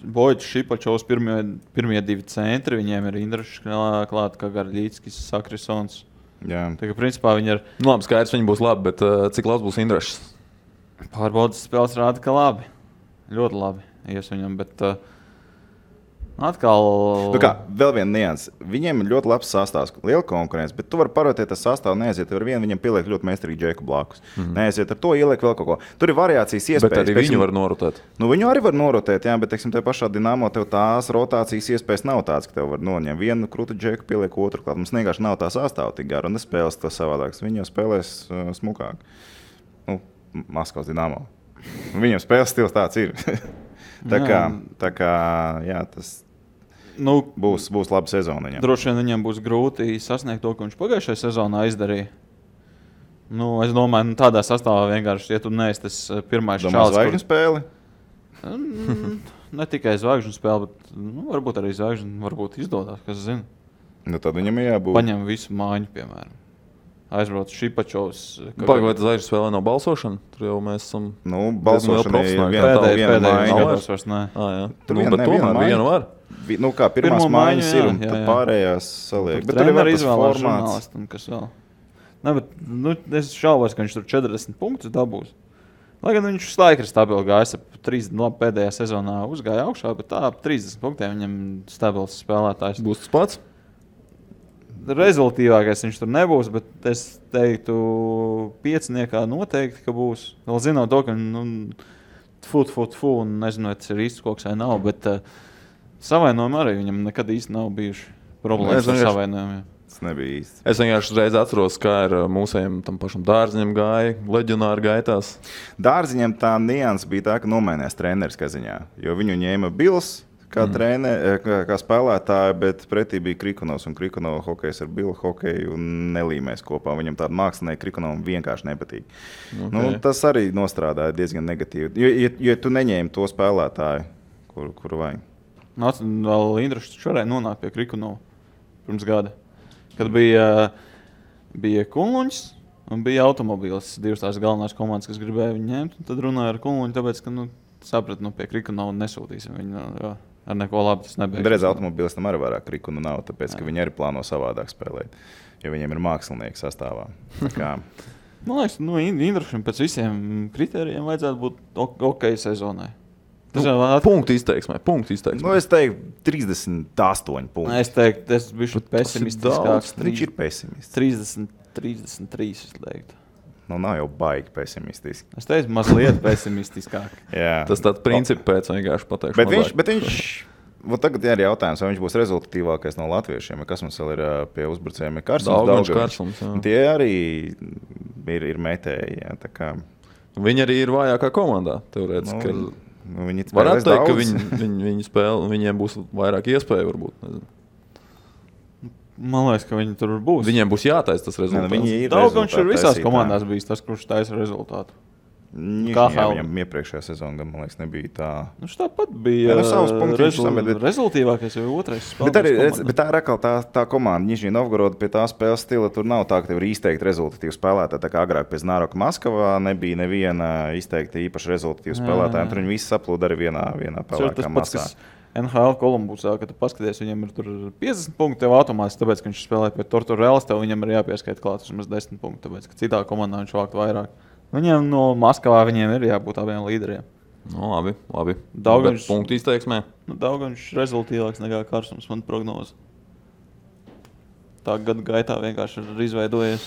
Boits, Šipačovs, pirmie divi centri. Viņiem ir Indrašs klāt, Kagarļīckis, Sakrisons. Jā. Tā kā principā viņi ir... Labi, skaidrs, viņi būs labi, bet cik labs būs Indrašs? Pārbaudas spēles rāda, ka labi. Ļoti labi ies viņam, bet... Atkal... Vēl viena nianse. Viņiem ir ļoti labs sastāvs, liela konkurence, bet tu vari parotēt tas sastāvu, neaiziet ar vienu, viņam pieliek ļoti meistarīgi Džeku blakus. Neaiziet ar to, ieliek vēl kaut ko. Tur ir variācijas iespējas. Bet arī viņu var norotēt. Viņu arī var norotēt, jā, bet, teiksim, te pašā Dinamo tev tās rotācijas iespējas nav tāds, ka tev var noņemt vienu krūtu Džeku, pieliek otru klāt. Mums vienkārši nav tā sastāva tik gara un nespēles to savādāks. Viņi jau spēlēs smukāk. Maskavas Dinamo. Viņam spēles stils tāds ir. Tā kā jā, tas būs laba sezona viņam. Droši vien viņam būs grūti sasniegt to, ko viņš pagājušajā sezonā izdarīja. Es domāju, tādā sastāvā vienkārši, ja tu neesi tas pirmais čalis. Zvaigžņu spēli? Ne tikai zvaigžņu spēli, bet varbūt arī zvaigžņu varbūt izdodās, kas zina. Tad viņam jābūt. Paņem visu māņu, piemēram. Aizbrauc Šipačovs. Vai tas zvaigžņu spēlē nav balsošana? Tur jau mēs esam... balsošana ir viena gados vairs nē. Tur viena var. Kā pirmās mājas ir un tad pārējās saliek. Bet tur ir vēl tas formāts. Kas vēl. Ne, bet es šaubos, ka viņš tur 40 punktus dabūs. Lai gan viņš laikri stabili gājas, pēdējā sezonā uzgāja augšā, bet tā 30 punktiem viņam stabils spēlētājs. Būs tas pats? Rezultīvākais viņš tur nebūs, bet es teiktu pieciniekā noteikti, ka būs. Vēl zinot to, ka un nezinu, vai tas ir īsts koks vai nav, bet savainojumi arī viņam nekad īsti nav bijuši problēmas ar savainojumiem. Tas nebija īsti. Es vienkārši uzreiz atceros, kā ir mūsējiem tam pašam Dārziņam gāja, leģionāri gaitās. Dārziņam tā nianses bija tā, ka nomainījās treneris kaziņā, jo viņu ņēma Bils kā kā spēlētāja, bet pretī bija Krikonovs, un Krikonova hokejs ar Bilu hokeju nelīmēs kopā. Viņam tāda mākslinieka Krikonovam vienkārši nepatīk. Okay. Tas arī nostrādāja diezgan negatīvi, jo tu neņēmi to spēlētāju, kuru vajag. Vēl Indrašs šoreiz nonāk pie Krikonova pirms gada, kad bija Kunluņs un bija automobīls, divas tās galvenās komandas, kas gribēja viņu ņemt, un tad runāja ar Kunluņu, tāpēc, ka sapratu, pie Krikunovas nesūtīsim viņu. Jo ar neko labu tas nebija. Reiz automobilistam arī vairāk Krikunu nav, tāpēc, ka viņi arī plāno savādāk spēlēt, jo viņiem ir mākslinieki sastāvā. Man liekas, Indrašam pēc visiem kritērijiem vajadzētu būt ok sezonai. Punktu izteiksmē. Es teiktu 38 punkti. Es teiktu, tas bija pesimistiskāks. Viņš ir pesimists. 33, es teiktu. Nav jau baigi pesimistiski. Es teicu, mazliet pesimistiskāk. Tas tāds principi pēc vienkārši pateikšu. Bet viņš tagad ir jautājums, vai viņš būs rezultatīvākais no latviešiem, kas mums vēl ir pie uzbrucējiem. Karsums. Tie arī ir metēji. Viņi arī ir vājākā komandā, teorētiski. Varētu teikt, ka viņi spēlē, viņiem būs vairāk iespēju varbūt. Nezinu. Man liekas, ka viņi tur būs. Viņiem būs jātaisa tas rezultāts. Daugavs ir visās komandās bijis tas, kurš taisa rezultātu. Viņam iepriekšējā sezonā, man liekas, nebija tā. Tāpat bija rezultīvākais jau otrais spēlētājs. Bet tā ir atkal tā komanda. Nižņī Novgoroda pie tā spēles stila tur nav tā, ka tev ir izteikti rezultatīvi spēlētāji. Tā kā agrāk pie Znaroka Maskavā nebija neviena izteikti īpaši rezultatīva spēlētāja. Tur viņi visi saplūda arī vienā pelēkā masā. NHL Kolumbusā, kad tu paskaties, viņam ir tur 50 punkti tev automātiski, tāpēc, ka viņš spēlē pie Torturelas, tev viņam ir jāpieskaita klāt vismaz 10 punkti, tāpēc, ka citā komandā viņš vākt vairāk. Viņiem no Maskavā viņiem ir jābūt abiem līderiem. Labi. Daugavs punktu izteiksmē. Daugavs rezultīvāks nekā Karsums, man prognoze. Tā gadu gaitā vienkārši ir izveidojies.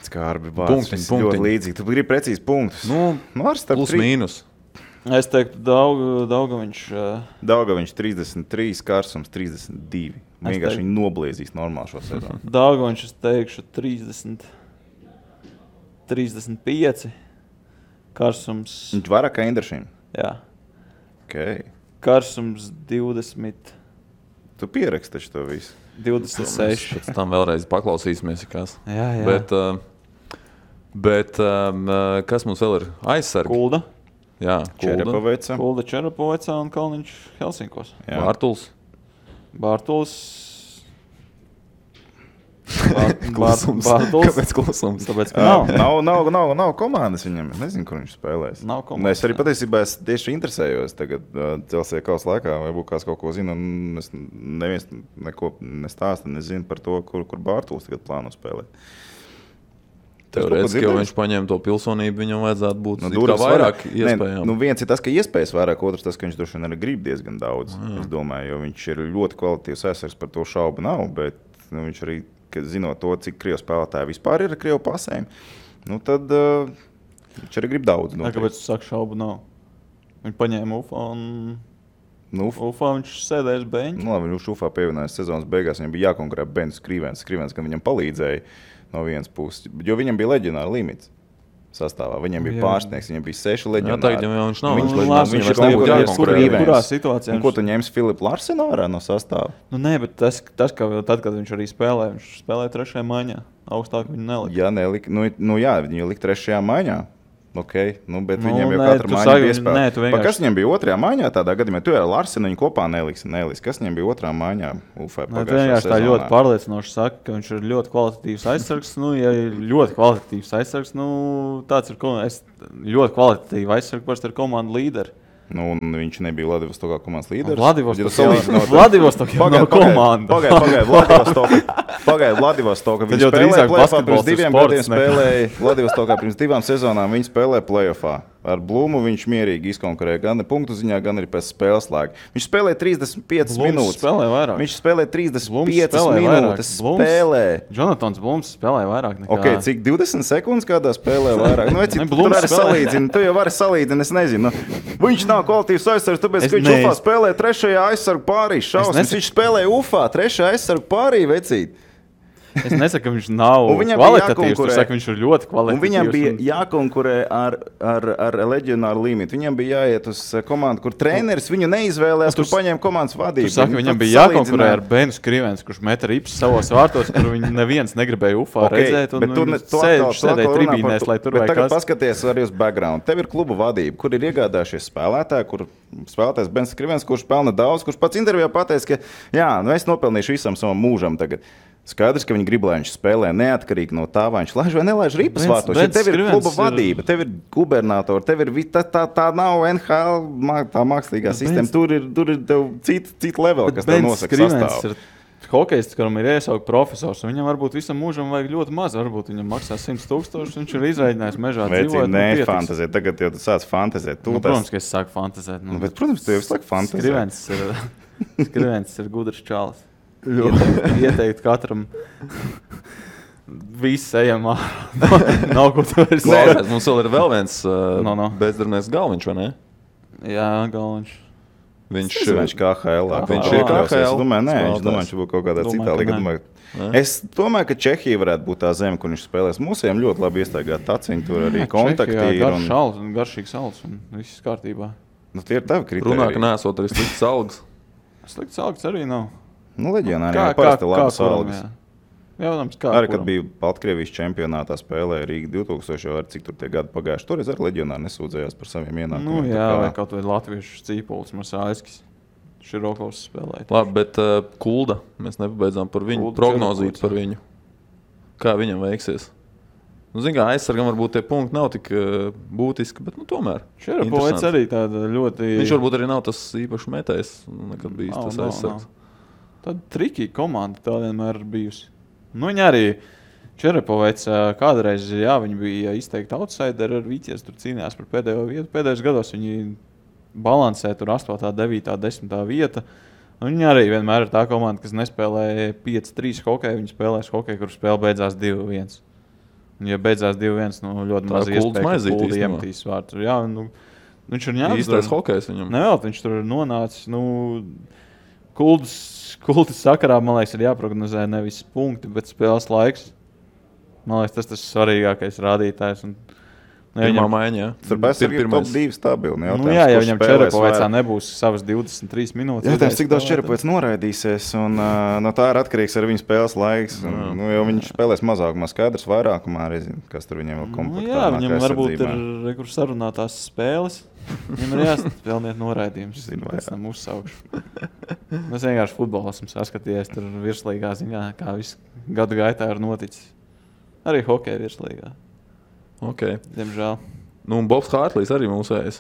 Skarbi vārds, ļoti līdzīgi. Tu gribi precīzi punktus. Plus mīnus. Es teiktu, Daugavs 33, Karsums 32. Vienkārši viņi nobliezīs normāli šo sezonu. Daugavs, es teikšu, 35. Karsums. Viņš vairāk kā Indrašim? Jā. Okay. Karsums 20. Tu pieraksti taču to visu. 26. Pēc tam vēlreiz paklausīsimies, kas. Jā. Bet kas mums vēl ir? Aizsargi. Kulda. Jā, Kulda Čerapoveca un Kalniņš Helsinkos. Bārtuls. Kāpēc klusums? Tāpēc, ka nav komandas viņam. Es nezinu, kur viņš spēlēs. Es arī patiesībā tieši interesējos tagad Celsija kausa laikā, vai būtu kāds kaut ko zina. Neviens neko nestāsta, nezinu par to, kur Bārtuls tagad plāno spēlēt. Teorētiski, ja viņš paņēma to pilsonību, viņam vajadzētu būt vairāk iespējām. Viens ir tas, ka iespējas vairāk, otrs tas, ka viņš droši vien arī grib diezgan daudz. Es domāju, jo viņš ir ļoti kvalitīvs aizsargs, par to šaubu nav, bet viņš arī, zinot to, cik krievu spēlētāji vispār ir ar krievu pasēm, tad viņš arī grib daudz. Kāpēc tu saki, šaubu nav? Viņi paņēma Ufā un Ufā viņš sēdēja uz beņķa. Viņš Ufā pievienojās sezonas beigās, viņam bija jākonkurē Bens Skrivens, gan viņam palīdzēja. No vienas puses, jo viņam bija leģionāra limits sastāvā. Viņam bija pārsniegs, viņam bija 6 leģionāri. Jā, tagad jau viņš nav. Viņš ir kaut kurā situācijā. Ko tu ņemsi Filipu Larsenu ārā no sastāva? Nē, bet tas, ka tad, kad viņš arī spēlē, viņš spēlē 3. maiņā. Augstāk viņu nelika. Jā, nelika. Viņu lika 3. maiņā. Okay, bet viņam jau katra maiņa bija iespēja. Kas viņam bija 2. maiņā tādā gadījumā? Tu ar Larsenu viņu kopā neliksi. Kas viņam bija 2. maiņā? Vienkārši tā ļoti pārliecinoši saka, ka viņš ir ļoti kvalitatīvs aizsargs. Ja ir ļoti kvalitatīvs aizsargs, tāds ir ļoti kvalitatīvs aizsargs, parasti ir komandu līderi. Viņš nebija Vladivostokā komandas līderis. Vladivostokā nav komanda. Pagaid, Vladivostokā. Viņš spēlēja play-offā pirms 2 gadiem. Vladivostokā pirms 2 sezonām viņi spēlēja play-offā. Ar Blumu viņš mierīgi izkonkurēja gan punktu ziņā, gan arī pēc spēles laika. Viņš spēlēja 35 minūtes. Viņš spēlēja 35 minūtes. Jonatans Blums spēlēja vairāk nekā. Ok, cik 20 sekundes kādā spēlē vairāk? Tur arī salīdzina. Tu jau vari salīdzina, es nezinu. Viņš nav kvalitīvs aizsargs, tāpēc, ka viņš Ufā spēlē 3. aizsargu pārī. Viņš spēlēja Ufā 3. aizsargu pārī, vecīt. Es nesaku, ka viņš nav kvalitatīvs, tu saki, viņš ir ļoti kvalitatīvs. Viņam bija jākonkurē ar leģionāru limitu. Viņam bija jāiet uz komandu, kur treneris viņu neizvēlējās, kur paņēma komandas vadību. Tu saki, viņam bija jākonkurē ar Benu Skrivens, kurš meta rips savos vārtos, kur viņi neviens negribēja Ufā redzēt, un sēdēja tribīnēs, lai tur vai kas. Bet tagad paskaties arī uz background. Tev ir klubu vadība, kur ir iegādājušies spēlētāji, kur spēlētājs Bens Skrivens, kurš pelna daudz, kurš pats intervijā pateica, ka jā, es nopelnīšu visam savam mūžam tagad. Skaidrs, ka viņi grib, lai viņš spēlē neatkarīgi no tā, vai viņš laiž vai nelaiž ripas vārtos. Ja tev ir kluba vadība, tev ir gubernatori, tev ir tā nav NHL, tā mākslīgā sistēma. Tur ir tev cita level, kas tev nosaka sastāvu. Hokejists, kuram ir iesaukt profesors, un viņam varbūt visam mūžam vajag ļoti maz. Varbūt viņam maksā 100,000, viņš ir izrēķinājis mežā dzīvot. Nē, fantazēt. Tagad jau tu sāc fantazēt. Protams, ka es sāku fantazēt. Bet, protams, tu jau sāki fantazēt. Skrivens ir gudrs čalis. Ieteikt katram visu ejam ārā. Nav ko tu vairs sēst. Mums vēl ir vēl viens bezdarbnieks Galviņš, vai ne? Jā, Galviņš. Viņš KHL. Viņš ir KHL. Es domāju, viņš būtu kaut kādā citā līgā. Es domāju, ka Čehija varētu būt tā zeme, kur viņš spēlēs. Mūsiem ļoti labi iestrādāt taciņu, tur arī kontakti. Garšīgs alts un viss kārtībā. Tie ir tavi kritēriji. Runā, ka neesot arī slikts algas. Slikts algas arī nav. Leģionāri jau parasti labas algas. Arī, kad bija Baltkrievijas čempionātā spēlēja Rīga 2000, ar cik tur tie gadi pagājuši. Toreiz arī leģionāri nesūdzējās par saviem ienākumiem. Vai kaut vai latviešu Cīpolis, Marsāļskis, Širokovs spēlēja. Labi, bet Kulda, mēs nepabeidzām par viņu, prognozīt par viņu. Kā viņam veiksies? Zin kā, aizsargam varbūt tie punkti nav tik būtiski, bet tomēr. Šerapovets arī tāda ļoti... Viņš varbūt arī nav tas īpaši metējs, nekad bijis tas aizsargs. Tāda trikīga komanda tā vienmēr ir bijusi. Viņa arī Čerapovets kādreiz, viņi bija izteikti outsideri ar Vīķies, tur cīnījās par pēdējo vietu. Pēdējos gados viņi balansē tur 8., 9., 10. vieta. Viņi arī vienmēr ir tā komanda, kas nespēlē 5-3 hokeju, viņi spēlēs hokeju, kur spēle beidzās 2-1. Un, ja beidzās 2-1, ļoti maz iespēja, ka Kulda iemetīs vārtu. Jā, viņš ir ņēmis. Īstais hokejs viņam. Nevēl, viņš tur ir nonācis. Kultas sakarā, man liekas, ir jāprognozē nevis punkti, bet spēles laiks. Man liekas, tas svarīgākais rādītājs. Pirmā maiņa, jā. Tur ir top 2 stabili. Jā, ja viņam Čerapovecā nebūs savas 23 minūtes. Jautājums, cik daudz Čerapovets noraidīsies, un no tā ir atkarīgs arī viņa spēles laiks. Jo viņš spēlēs mazākumā, skaidrs vairākumā, kas tur viņiem vēl komplektā. Jā, viņam varbūt ir kur sarunātās spēles. Viņam ir jāspēlniet noraidījums. Pēc tam uzsaukšu. Mēs vienkārši futbolu esam saskatījies tur virslīgā ziņā, kā viss gadu gaitā ir noticis. Arī hokeja virslīgā. Okay. Diemžēl. Un Bobs Hārtlīs arī mūsējais.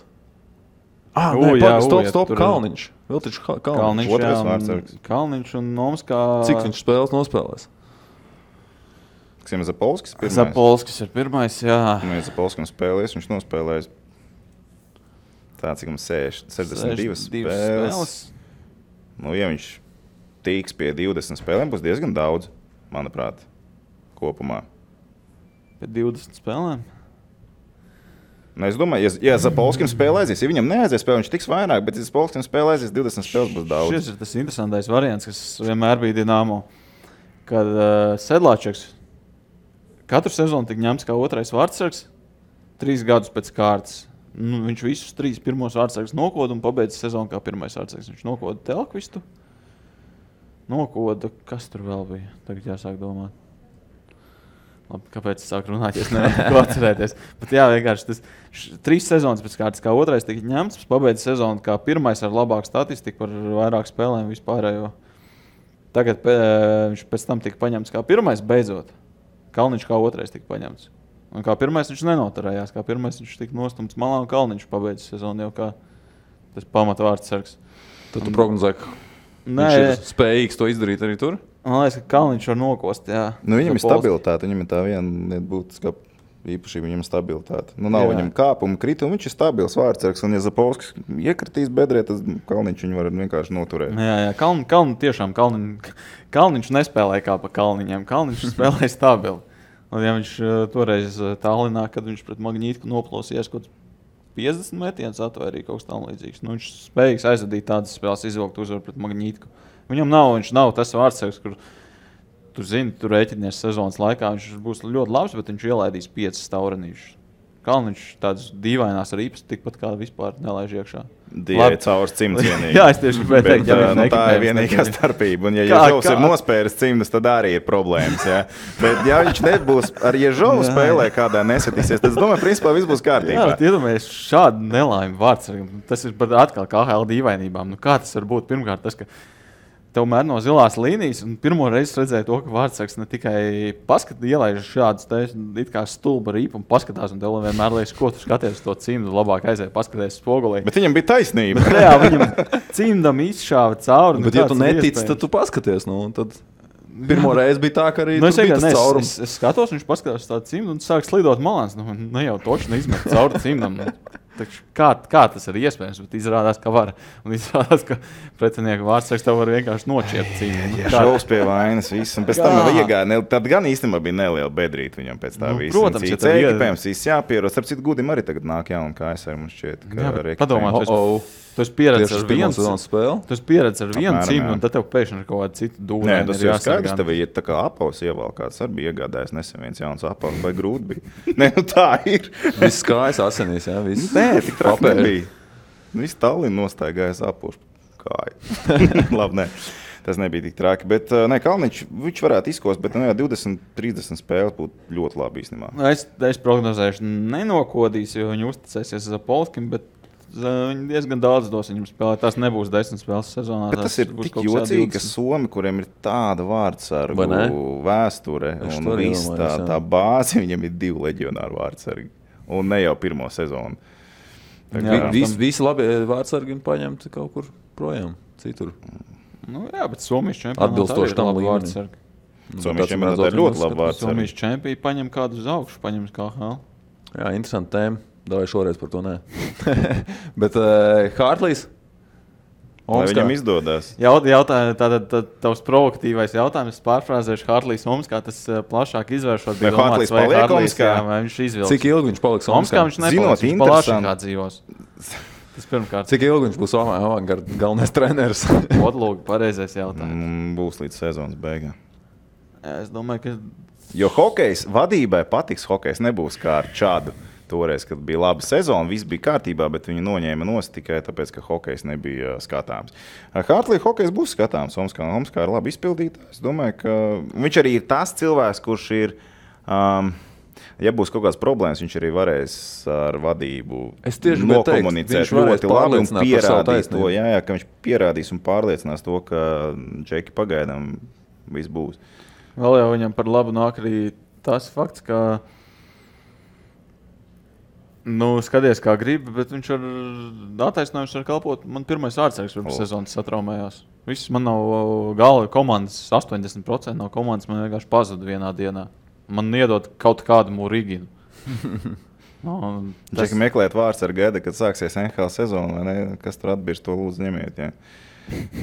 Stop, Kalniņš. Vēl taču Kalniņš. Otrais vārdsargs. Kalniņš un Nomskā. Cik viņš spēles nospēlēs? Kas Zapolskis pirmais? Zapolskis ir pirmais, jā. Ja Zapolskam spēlēs, viņš nospēlēs tā, cik mums 62 spēles. Ja viņš tīks pie 20 spēlēm, būs diezgan daudz, manuprāt, kopumā. Pēc 20 spēlēm? Es domāju, ja Zapolskim spēlē aizies, ja viņam neaizies spēlē, viņš tiks vairāk, bet ja Zapolskim spēlē aizies, 20 spēles būs daudz. Šis ir tas interesantais variants, kas vienmēr bija Dinamo, kad Sedlāčeks katru sezonu tik ņemts kā otrais vārdsargs, 3 gadus pēc kārtas. Viņš visus 3 pirmos vārdsargus nokoda un pabeidza sezonu kā pirmais vārdsargs. Viņš nokoda Telkvistu, nokoda, kas tur vēl bija, tagad jāsāk domāt. Labi, kāpēc es sāku runāt, ja es nevaru ko atcerēties. Bet jā, vienkārši tas 3 sezonas pēc kārtas kā otrais tika ņemts, pabeidza sezonu kā pirmais ar labāku statistiku par vairāk spēlēm vispārējo. Tagad viņš pēc tam tika paņemts kā pirmais beidzot. Kalniņš kā otrais tika paņemts. Un kā pirmais viņš nenoturējās, kā pirmais viņš tika nostumts malā un Kalniņš pabeidza sezonu jau kā tas pamatvārdsargs. Tad tu prognozē, ka viņš ir spējīgs to izdarīt arī tur? Man liekas, ka Kalniņš var nokost, jā. Viņam ir stabilitāte, viņam ir tā viena būtiska īpašība, viņam ir stabilitāte. Nav viņam kāpuma, krituma, viņš ir stabils vārdsargs, un ja Zapolskis iekritīs bedrē, tad Kalniņš viņu var vienkārši noturēt. Jā, tiešām Kalniņš nespēlē kā pa Kalniņiem, Kalniņš spēlē stabili. Un ja viņš toreiz Tallinā, kad viņš pret Magnītku noplosījās kaut 50 metienus atvērīja kaut kas tam līdzīgs. Viņš spējīgs aizvadīt tādas spēles, izvilkt uzvaru pret Magnītku. Viņš nav tas vārdsargs, kur tu zini, tu rēķinies sezonas laikā, viņš būs ļoti labs, bet viņš ielaidīs 5 staurenīšus. Kalniņš tādas dīvainās rīpas tikpat kā vispār nelaiž iekšā. Dievai caurs cimds vienīgi. Jā, es tieši gribēju teikt, tā ir vienīgā starpība. Un ja Ježovs ir nospēris cimdus, tad arī ir problēmas. Ja? Bet ja viņš nebūs ar Ježovu spēlē kādā nesatīsies, tad es domāju, principā viss būs kārtībā. Jā, bet iedomājies šādu nelaimi vārdsargam. Tas ir atkal KHL dīvainībām. Kā tas var būt? Pirmkārt tas, ka Tomēr no zilās līnijas, un pirmo reizi redzēju to, ka Vārtsargs ne tikai ielaiž šādus it kā stulba rīpu un paskatās, un tev vienmēr liekas, ko tu skaties to cimdu, labāk aiziet paskaties spogulī. Bet viņam bija taisnība. Jā, viņam cimdam izšāva cauri. Bet, ja tu netici, tad tu paskaties. Tad pirmo reizi bija tā, ka arī tur bija tas caurums. Es skatos, viņš paskatās tādu cimdu un sāk slidot malāns. Ne jau toši neizmet cauri cimdam. Kā tas ir iespējams, bet izrādās, ka var. Un izrādās, ka pretinieku Vārtsargs tev var vienkārši noķert cīņu. Jā, šaus pie vainas viss. Un pēc tam jau iegāja. Tad gan īstenībā bija neliela bedrīta viņam pēc tā visa. Protams, ja tā ekipējums viss jāpieros. Starp citu, Gudim arī tagad nāk jauna KSR, mums šķiet. Padomā, tu esi pieredzis ar vienu spēli. Tu esi pieredzis ar vienu cīņu, un tad tev pēkšņi ir kaut kāda cita dūra. Nē, tas jau skaidrs, tev ir tā kā apaus ievēl, kāds arī bija iegādājis nesen viens jauns apaus, vai grūti bija. Nē, tā ir. Viss kājas asinīs, jā, viss. Nē, tik traki nebija. Viss Tallinn nostāja apaus kāju. Labi, nē. Tas nebija tik traki, bet Kalniņš, viņš varētu izkost, bet 20-30 spēles būtu ļoti labi īstenībā. Es prognozēšu nenokodīs, jo viņi uzticēsies Zapolskim, bet viņi diezgan daudz dos viņam spēlēt. Tas nebūs 10 spēles sezonā. Bet tas ir tik jocīgi, ka Somi, kuriem ir tāda vārdsargu vēsture un viss tā bāze, viņam ir 2 leģionāru vārdsargi. Un ne jau pirmo sezonu. Visi labi vārdsargi paņemti kaut kur projām, citur. Jā, bet Somijas čempionātā atbilstoši tam vārdsargi. Somijas čempionātā ir ļoti labi vārdsargi. Somijas čempionātā paņem kādu uz augšu, paņem KHL. Jā, interesanti tēma. Davai šoreiz par to nē. Bet Hartlīs? Lai viņam izdodas. Tātad tavs provokatīvais jautājums, pārfrāzēšu Hartlīs Omskā, tas plašāk izvēršot. Vai Hartlīs paliek Omskā? Vai viņš izvilks? Cik ilgi viņš paliks Omskā? Viņš nepaliks, viņš plašākā dzīvos. Tas pirmkārt. Cik ilgi viņš būs Avangarda galvenais treneris? Odlūga, pareizais jautājums. Būs līdz sezonas beigām. Es domāju, ka... Jo hokejs, vadībai patiks hokejs, nebūs kā ar Čādu. Toreiz, kad bija laba sezona, viss bija kārtībā, bet viņi noņēma nost tikai tāpēc, ka hokejs nebija skatāms. Hartlī hokejs būs skatāms. Omskā ir labi izpildītājs. Es domāju, ka viņš arī ir tas cilvēks, kurš ir, ja būs kaut kāds problēmas, viņš arī varēs ar vadību nokomunicēt ļoti labi un pierādīt to, ka viņš pierādīs un pārliecinās to, ka Džeki pagaidām viss būs. Vēl jau viņam par labu nāk arī tas fakts, ka skaties, kā grib, bet viņš ar attaisnojums var kalpot. Man pirmais vārdsargs pirms sezonas satraumējās. Viss man nav gala komandas, 80% no komandas man vienkārši pazuda vienā dienā. Man iedod kaut kādu Muriginu. Džeki meklēt vārdsargu gaida, kad sāksies NHL sezona, vai ne? Kas tur atbirst, to lūdzu ņemiet, jā.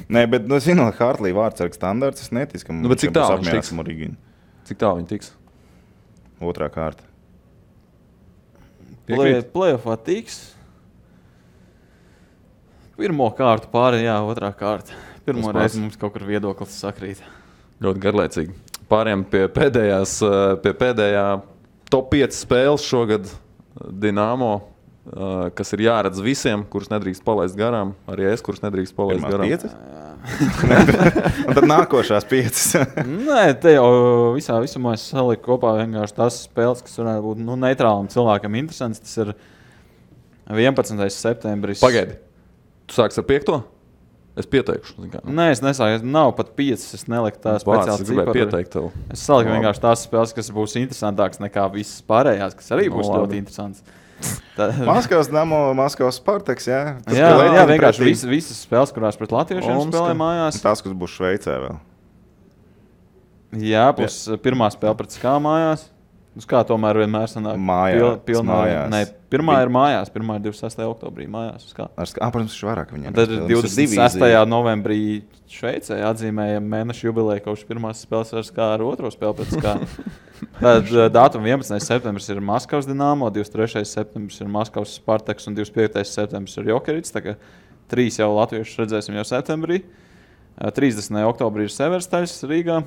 Nē, bet, zinot, Hartlī vārdsargu standarts, es neticu, ka viņš būs apmierināts Muriginu. Cik tā viņi tiks? Otrā kārta. Playoffā tiks. Pirmo kārtu pāri, otrā kārta. Pirmo reizi mums kaut kur viedoklis sakrīt. Ļoti garlaicīgi. Pāriem pie pēdējā top 5 spēles šogad Dinamo, kas ir jāredz visiem, kurus nedrīkst palaist garām. Arī es, kurus nedrīkst palaist garām. Un tad nākošās 5. Nē, te jau visumā es saliku kopā vienkārši tās spēles, kas varētu būt neitrālam cilvēkam interesants. Tas ir 11. septembris. Pagaidi, tu sāks ar 5? Es pieteikšu. Nē, es nesāku. Nav pat 5. Es neliku tā speciāli ciparu. Es saliku vienkārši tās spēles, kas būs interesantākas nekā visas pārējās, kas arī būs ļoti interesants. Maskavas Damo, Maskavas Spartaks, jā. Jā, vienkārši visas spēles, kurās pret latviešiem spēlē mājās. Tās, kas būs Šveicē vēl. Jā, būs pirmā spēle pret Skā mājās. Uz kā tomēr vienmēr sanāk? Mājās. Nē, pirmā ir mājās. Pirmā ir 26. oktobrī mājās. Protams, viņš vairāk viņam. Tad 26. novembrī Šveicē atzīmējam mēnešu jubileju, kopš pirmās spēles ar Skā ar otro spēli pret Skā. Tad datuma 11. septembris ir Maskavas Dinamo, 23. septembris ir Maskavas Spartaks un 25. septembris ir Jokerits. Tā kā 3 jau latviešus redzēsim jau septembrī. 30. oktobrī ir Severstaļs Rīgā.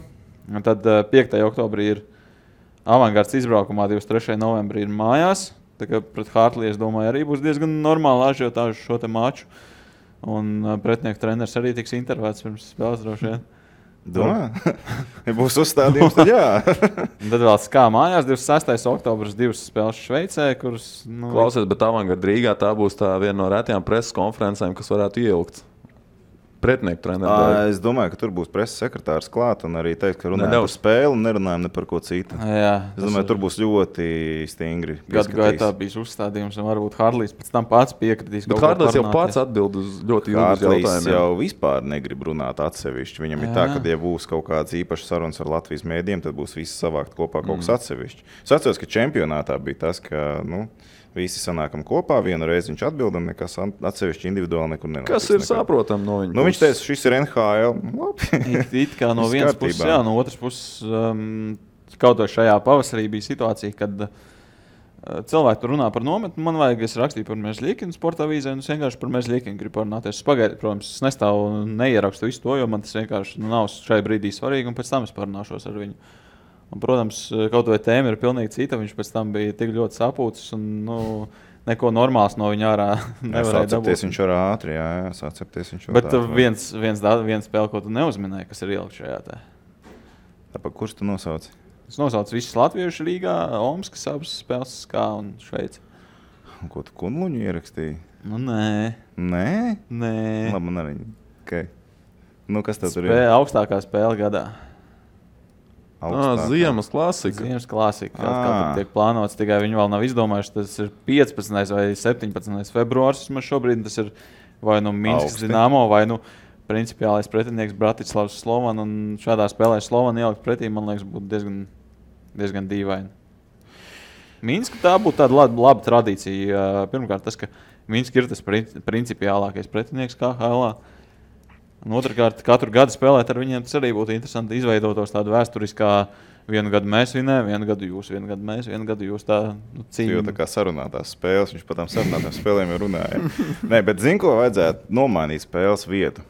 Un tad 5. oktobrī ir Avangards izbraukumā, 23. novembrī ir mājās. Tā kā pret Hartlī, es domāju, arī būs diezgan normāli ažiotāžu šo te maču. Un pretinieku treneris arī tiks intervēts pirms spēles droši vien. Domā? Ja būs uzstādījums, tad jā. Tad vēl Skā mājās, 26. oktobris 2 spēles Šveicē, kuras... Klausies, bet Avangarda Rīgā tā būs tā viena no retajām preses konferencēm, kas varētu ieilgt. pretinieku treneru. Es domāju, ka tur būs preses sekretārs klāt un arī teikt, ka runājam par spēli un nerunājam ne par ko citu. Es domāju, tur būs ļoti stingri. Gadu gaitā bijis uzstādījums, un varbūt Harlijs pēc tam pats piekritīs. Bet Harlijs jau pats atbild uz ļoti ilgus jautājumus. Harlijs jau vispār negrib runāt atsevišķi. Viņam ir tā, ka, ja būs kaut kāds īpašs sarunas ar Latvijas mēdījiem, tad būs visi savākt kopā kaut kas atsevišķi. Es atceros, ka čempionātā bija tas, ka, visi sanākam kopā, vienu reizi viņš atbild un nekas atsevišķi individuāli nekur nenotiek. Kas ir saprotam no viņa? Viņš teica, šis ir NHL. Labi. It kā no vienas puses, jā, no otras puses, kaut vai šajā pavasarī bija situācija, kad cilvēki tur runā par nometni. Man vajag, es rakstīju par Mežļikinu sporta avīzē, un es vienkārši par Mežļikinu gribu parunāties. Pagaidu, protams, es nestāvu un neierakstu visu to, jo man tas vienkārši nav šai brīdī svarīgi, un pēc tam es parunāšos ar viņu. Un, protams, kaut vai tēma ir pilnīgi cita. Viņš pēc tam bija tik ļoti sapūcis un neko normāls no viņa ārā nevarēja dabūt. Sācepties viņš var ātri, jā, sācepties viņš var Bet viens spēle, ko tu neuzminēji, kas ir ielikt šajā te. Tāpēc, kurš tu nosauci? Es nosaucu visus latviešu Rīgā, Omskas abas spēles, Skā un Šveici. Un ko tu Kunluņu ierakstīji? Nē. Nē? Nē. Labi, man arī. Okay. Kas tev tur ir? Augstākā spēle gadā. Ziemas klasika. Ziemas klasika. Kā tiek plānots, tikai viņi vēl nav izdomājuši. Tas ir 15. vai 17. februārs. Šobrīd tas ir vai Minskas Dinamo, vai principiālais pretinieks Bratislavs Slovan. Un šādā spēlē Slovan ielikt pretī, man liekas, būtu diezgan dīvaini. Minska tā būtu tāda laba tradīcija. Pirmkārt, tas, ka Minska ir tas principiālākais pretinieks KHL. Un otrkārt, katru gadu spēlēt ar viņiem, tas arī būtu interesanti izveidotos tādu vēsturiskā vienu gadu mēs vinējam, vienu gadu jūs, vienu gadu mēs, vienu gadu jūs tā cīņa. Jo tā kā sarunātās spēles, viņš pat tām sarunātām spēlēm jau runāja. Nē, bet zinu, ko vajadzētu nomainīt spēles vietu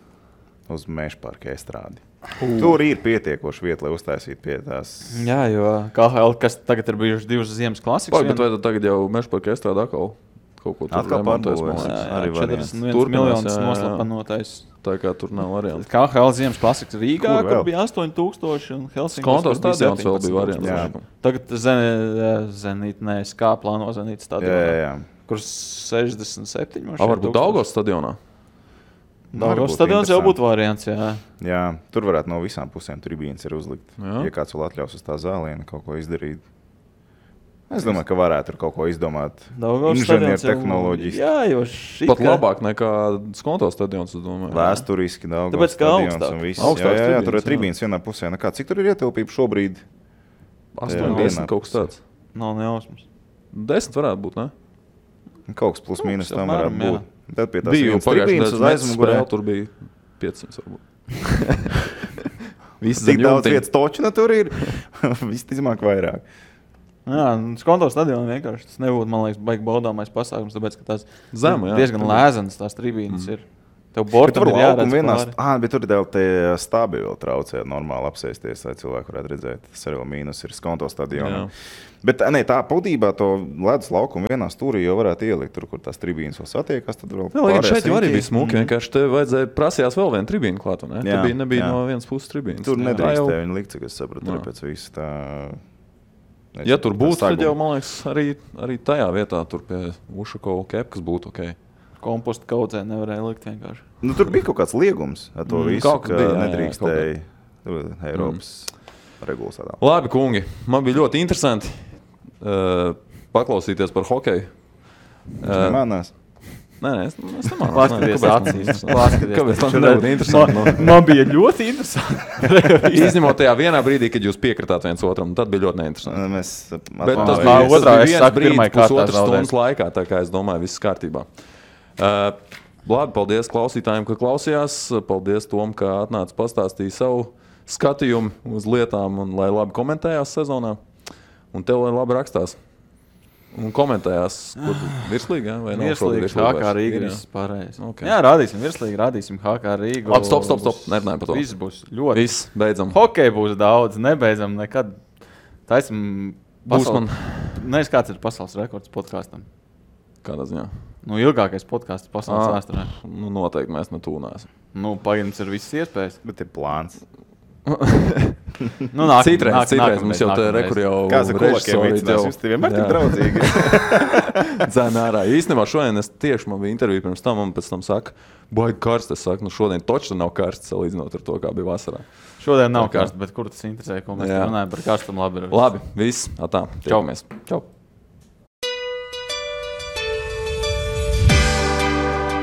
uz Mežparka estrādi. Tur ir pietiekoši vieta, lai uztaisītu pie tās. Jā, jo KHL, kas tagad ir bijuši 2 ziemas klasikas. Bet vai tu tagad jau Mežparka estrādi atkal kaut ko tur remontēs? Arī 41 miljonus noslapanotais. Tā kā tur nav variants. KHL ziemas klasikas Rīgā, kur bija 8000 un Helsinkos. Skonto stadions vēl bija variants. Tagad Zenīt, Skā plāno Zenīt stadionā. Kur 67. Varbūt Daugavas stadionā? Daugavas stadions jau būtu variants, jā. Jā, tur varētu no visām pusēm tribīnes ir uzlikt. Ja kāds vēl atļaus uz tā zāliena kaut ko izdarīt. Es domāju, ka varētu tur kaut ko izdomāt. Inženieru tehnoloģiski. Jā, jo pat labāk nekā Skonto stadions, es domāju. Vēsturiski Daugavas stadions un viss. Jā, tur ir tribīnes vienā pusē. Cik tur ir ietilpība šobrīd? 8-10 kaut kas tāds. Nav nejausmas. 10 varētu būt, ne? Kaut kas plus mīnus tam varētu būt. Tad pie tās bija viens tribīnes uz aizmugurē. Tur bija 500 varbūt. Cik daudz vietas točina tur ir? Visticamāk vairāk. Jā, Skonto stadionā vienkārši tas nebūtu, man liekas, baigi baudāmais pasākums, tāpēc, ka tās Zema, diezgan lēzenas tās tribīnes ir. Tev bortam ir jāredz pāri. Bet tur ir tie stābi vēl traucē normāli apsēsties, lai cilvēku varētu redzēt. Tas arī vēl mīnus ir Skonto stadionā. Bet tā būtībā to ledus laukumu vienā stūrī jau varētu ielikt tur, kur tās tribīnes vēl satiekas. Tad vēl šeit jau arī bija smuki, vienkārši te vajadzēja prasījās vēl vienu tribīnu klāt, ne? Te nebija no vienas puses tribīnes. Tur nedrīkstēja viņa likt, cik es sapratu, arī pēc visu tā. Ja tur būtu, tad jau, man liekas, arī tajā vietā tur pie Ušakova kepkas būtu ok. Kompostu kaudzē nevarēja likt vienkārši. Tur bija kaut kāds liegums ar to visu, ka nedrīkstēja Eiropas regulas tādā. Labi, kungi, man bija ļoti interesanti paklausīties par hokeju. Manās. Nē, es nemānu. Paskaties acīs. Kāpēc tas nebūtu interesanti? Man bija ļoti interesanti. Izņemot tajā vienā brīdī, kad jūs piekritāt viens otram, tad bija ļoti neinteresanti. Bet tas bija viens brīdis pusotras stundas laikā, tā kā es domāju, viss kārtībā. Labi, paldies klausītājiem, ka klausījās. Paldies Tom, ka atnāca pastāstīja savu skatījumu uz lietām un lai labi komentējās sezonā. Un tev lai labi rakstās. Un komentējās, kur virslīgi, vai nav virslīgi, HK Rīga viss pārējais. Okay. Jā, rādīsim virslīgi, rādīsim HK Rīgu. Labi, stop, nerunājam par to. Viss būs ļoti. Viss, beidzam. Hokej būs daudz, nebeidzam nekad. Taisim pasaules. Nezinu, kāds ir pasaules rekords podkāstam. Kādā ziņā? Ilgākais podkāsts pasaules vēsturē. Noteikti mēs netūnēsim. Pagaidams ir visas iespējas. Bet ir plāns. Citreiz mums jau tā rekur jau Kāds ar kolakiem vicinās, jūs te vienmēr tik draudzīgi. Dzēn ārā. Īstenībā šodien man bija intervija pirms tam, un pēc tam saka, baigi karsts. Es saku, šodien točs nav karsts, salīdzinot ar to, kā bija vasarā. Šodien nav karsts, bet kur tas interesē, ko mēs runājam par karstumu labi. Labi, viss. Atā. Čau. Čau.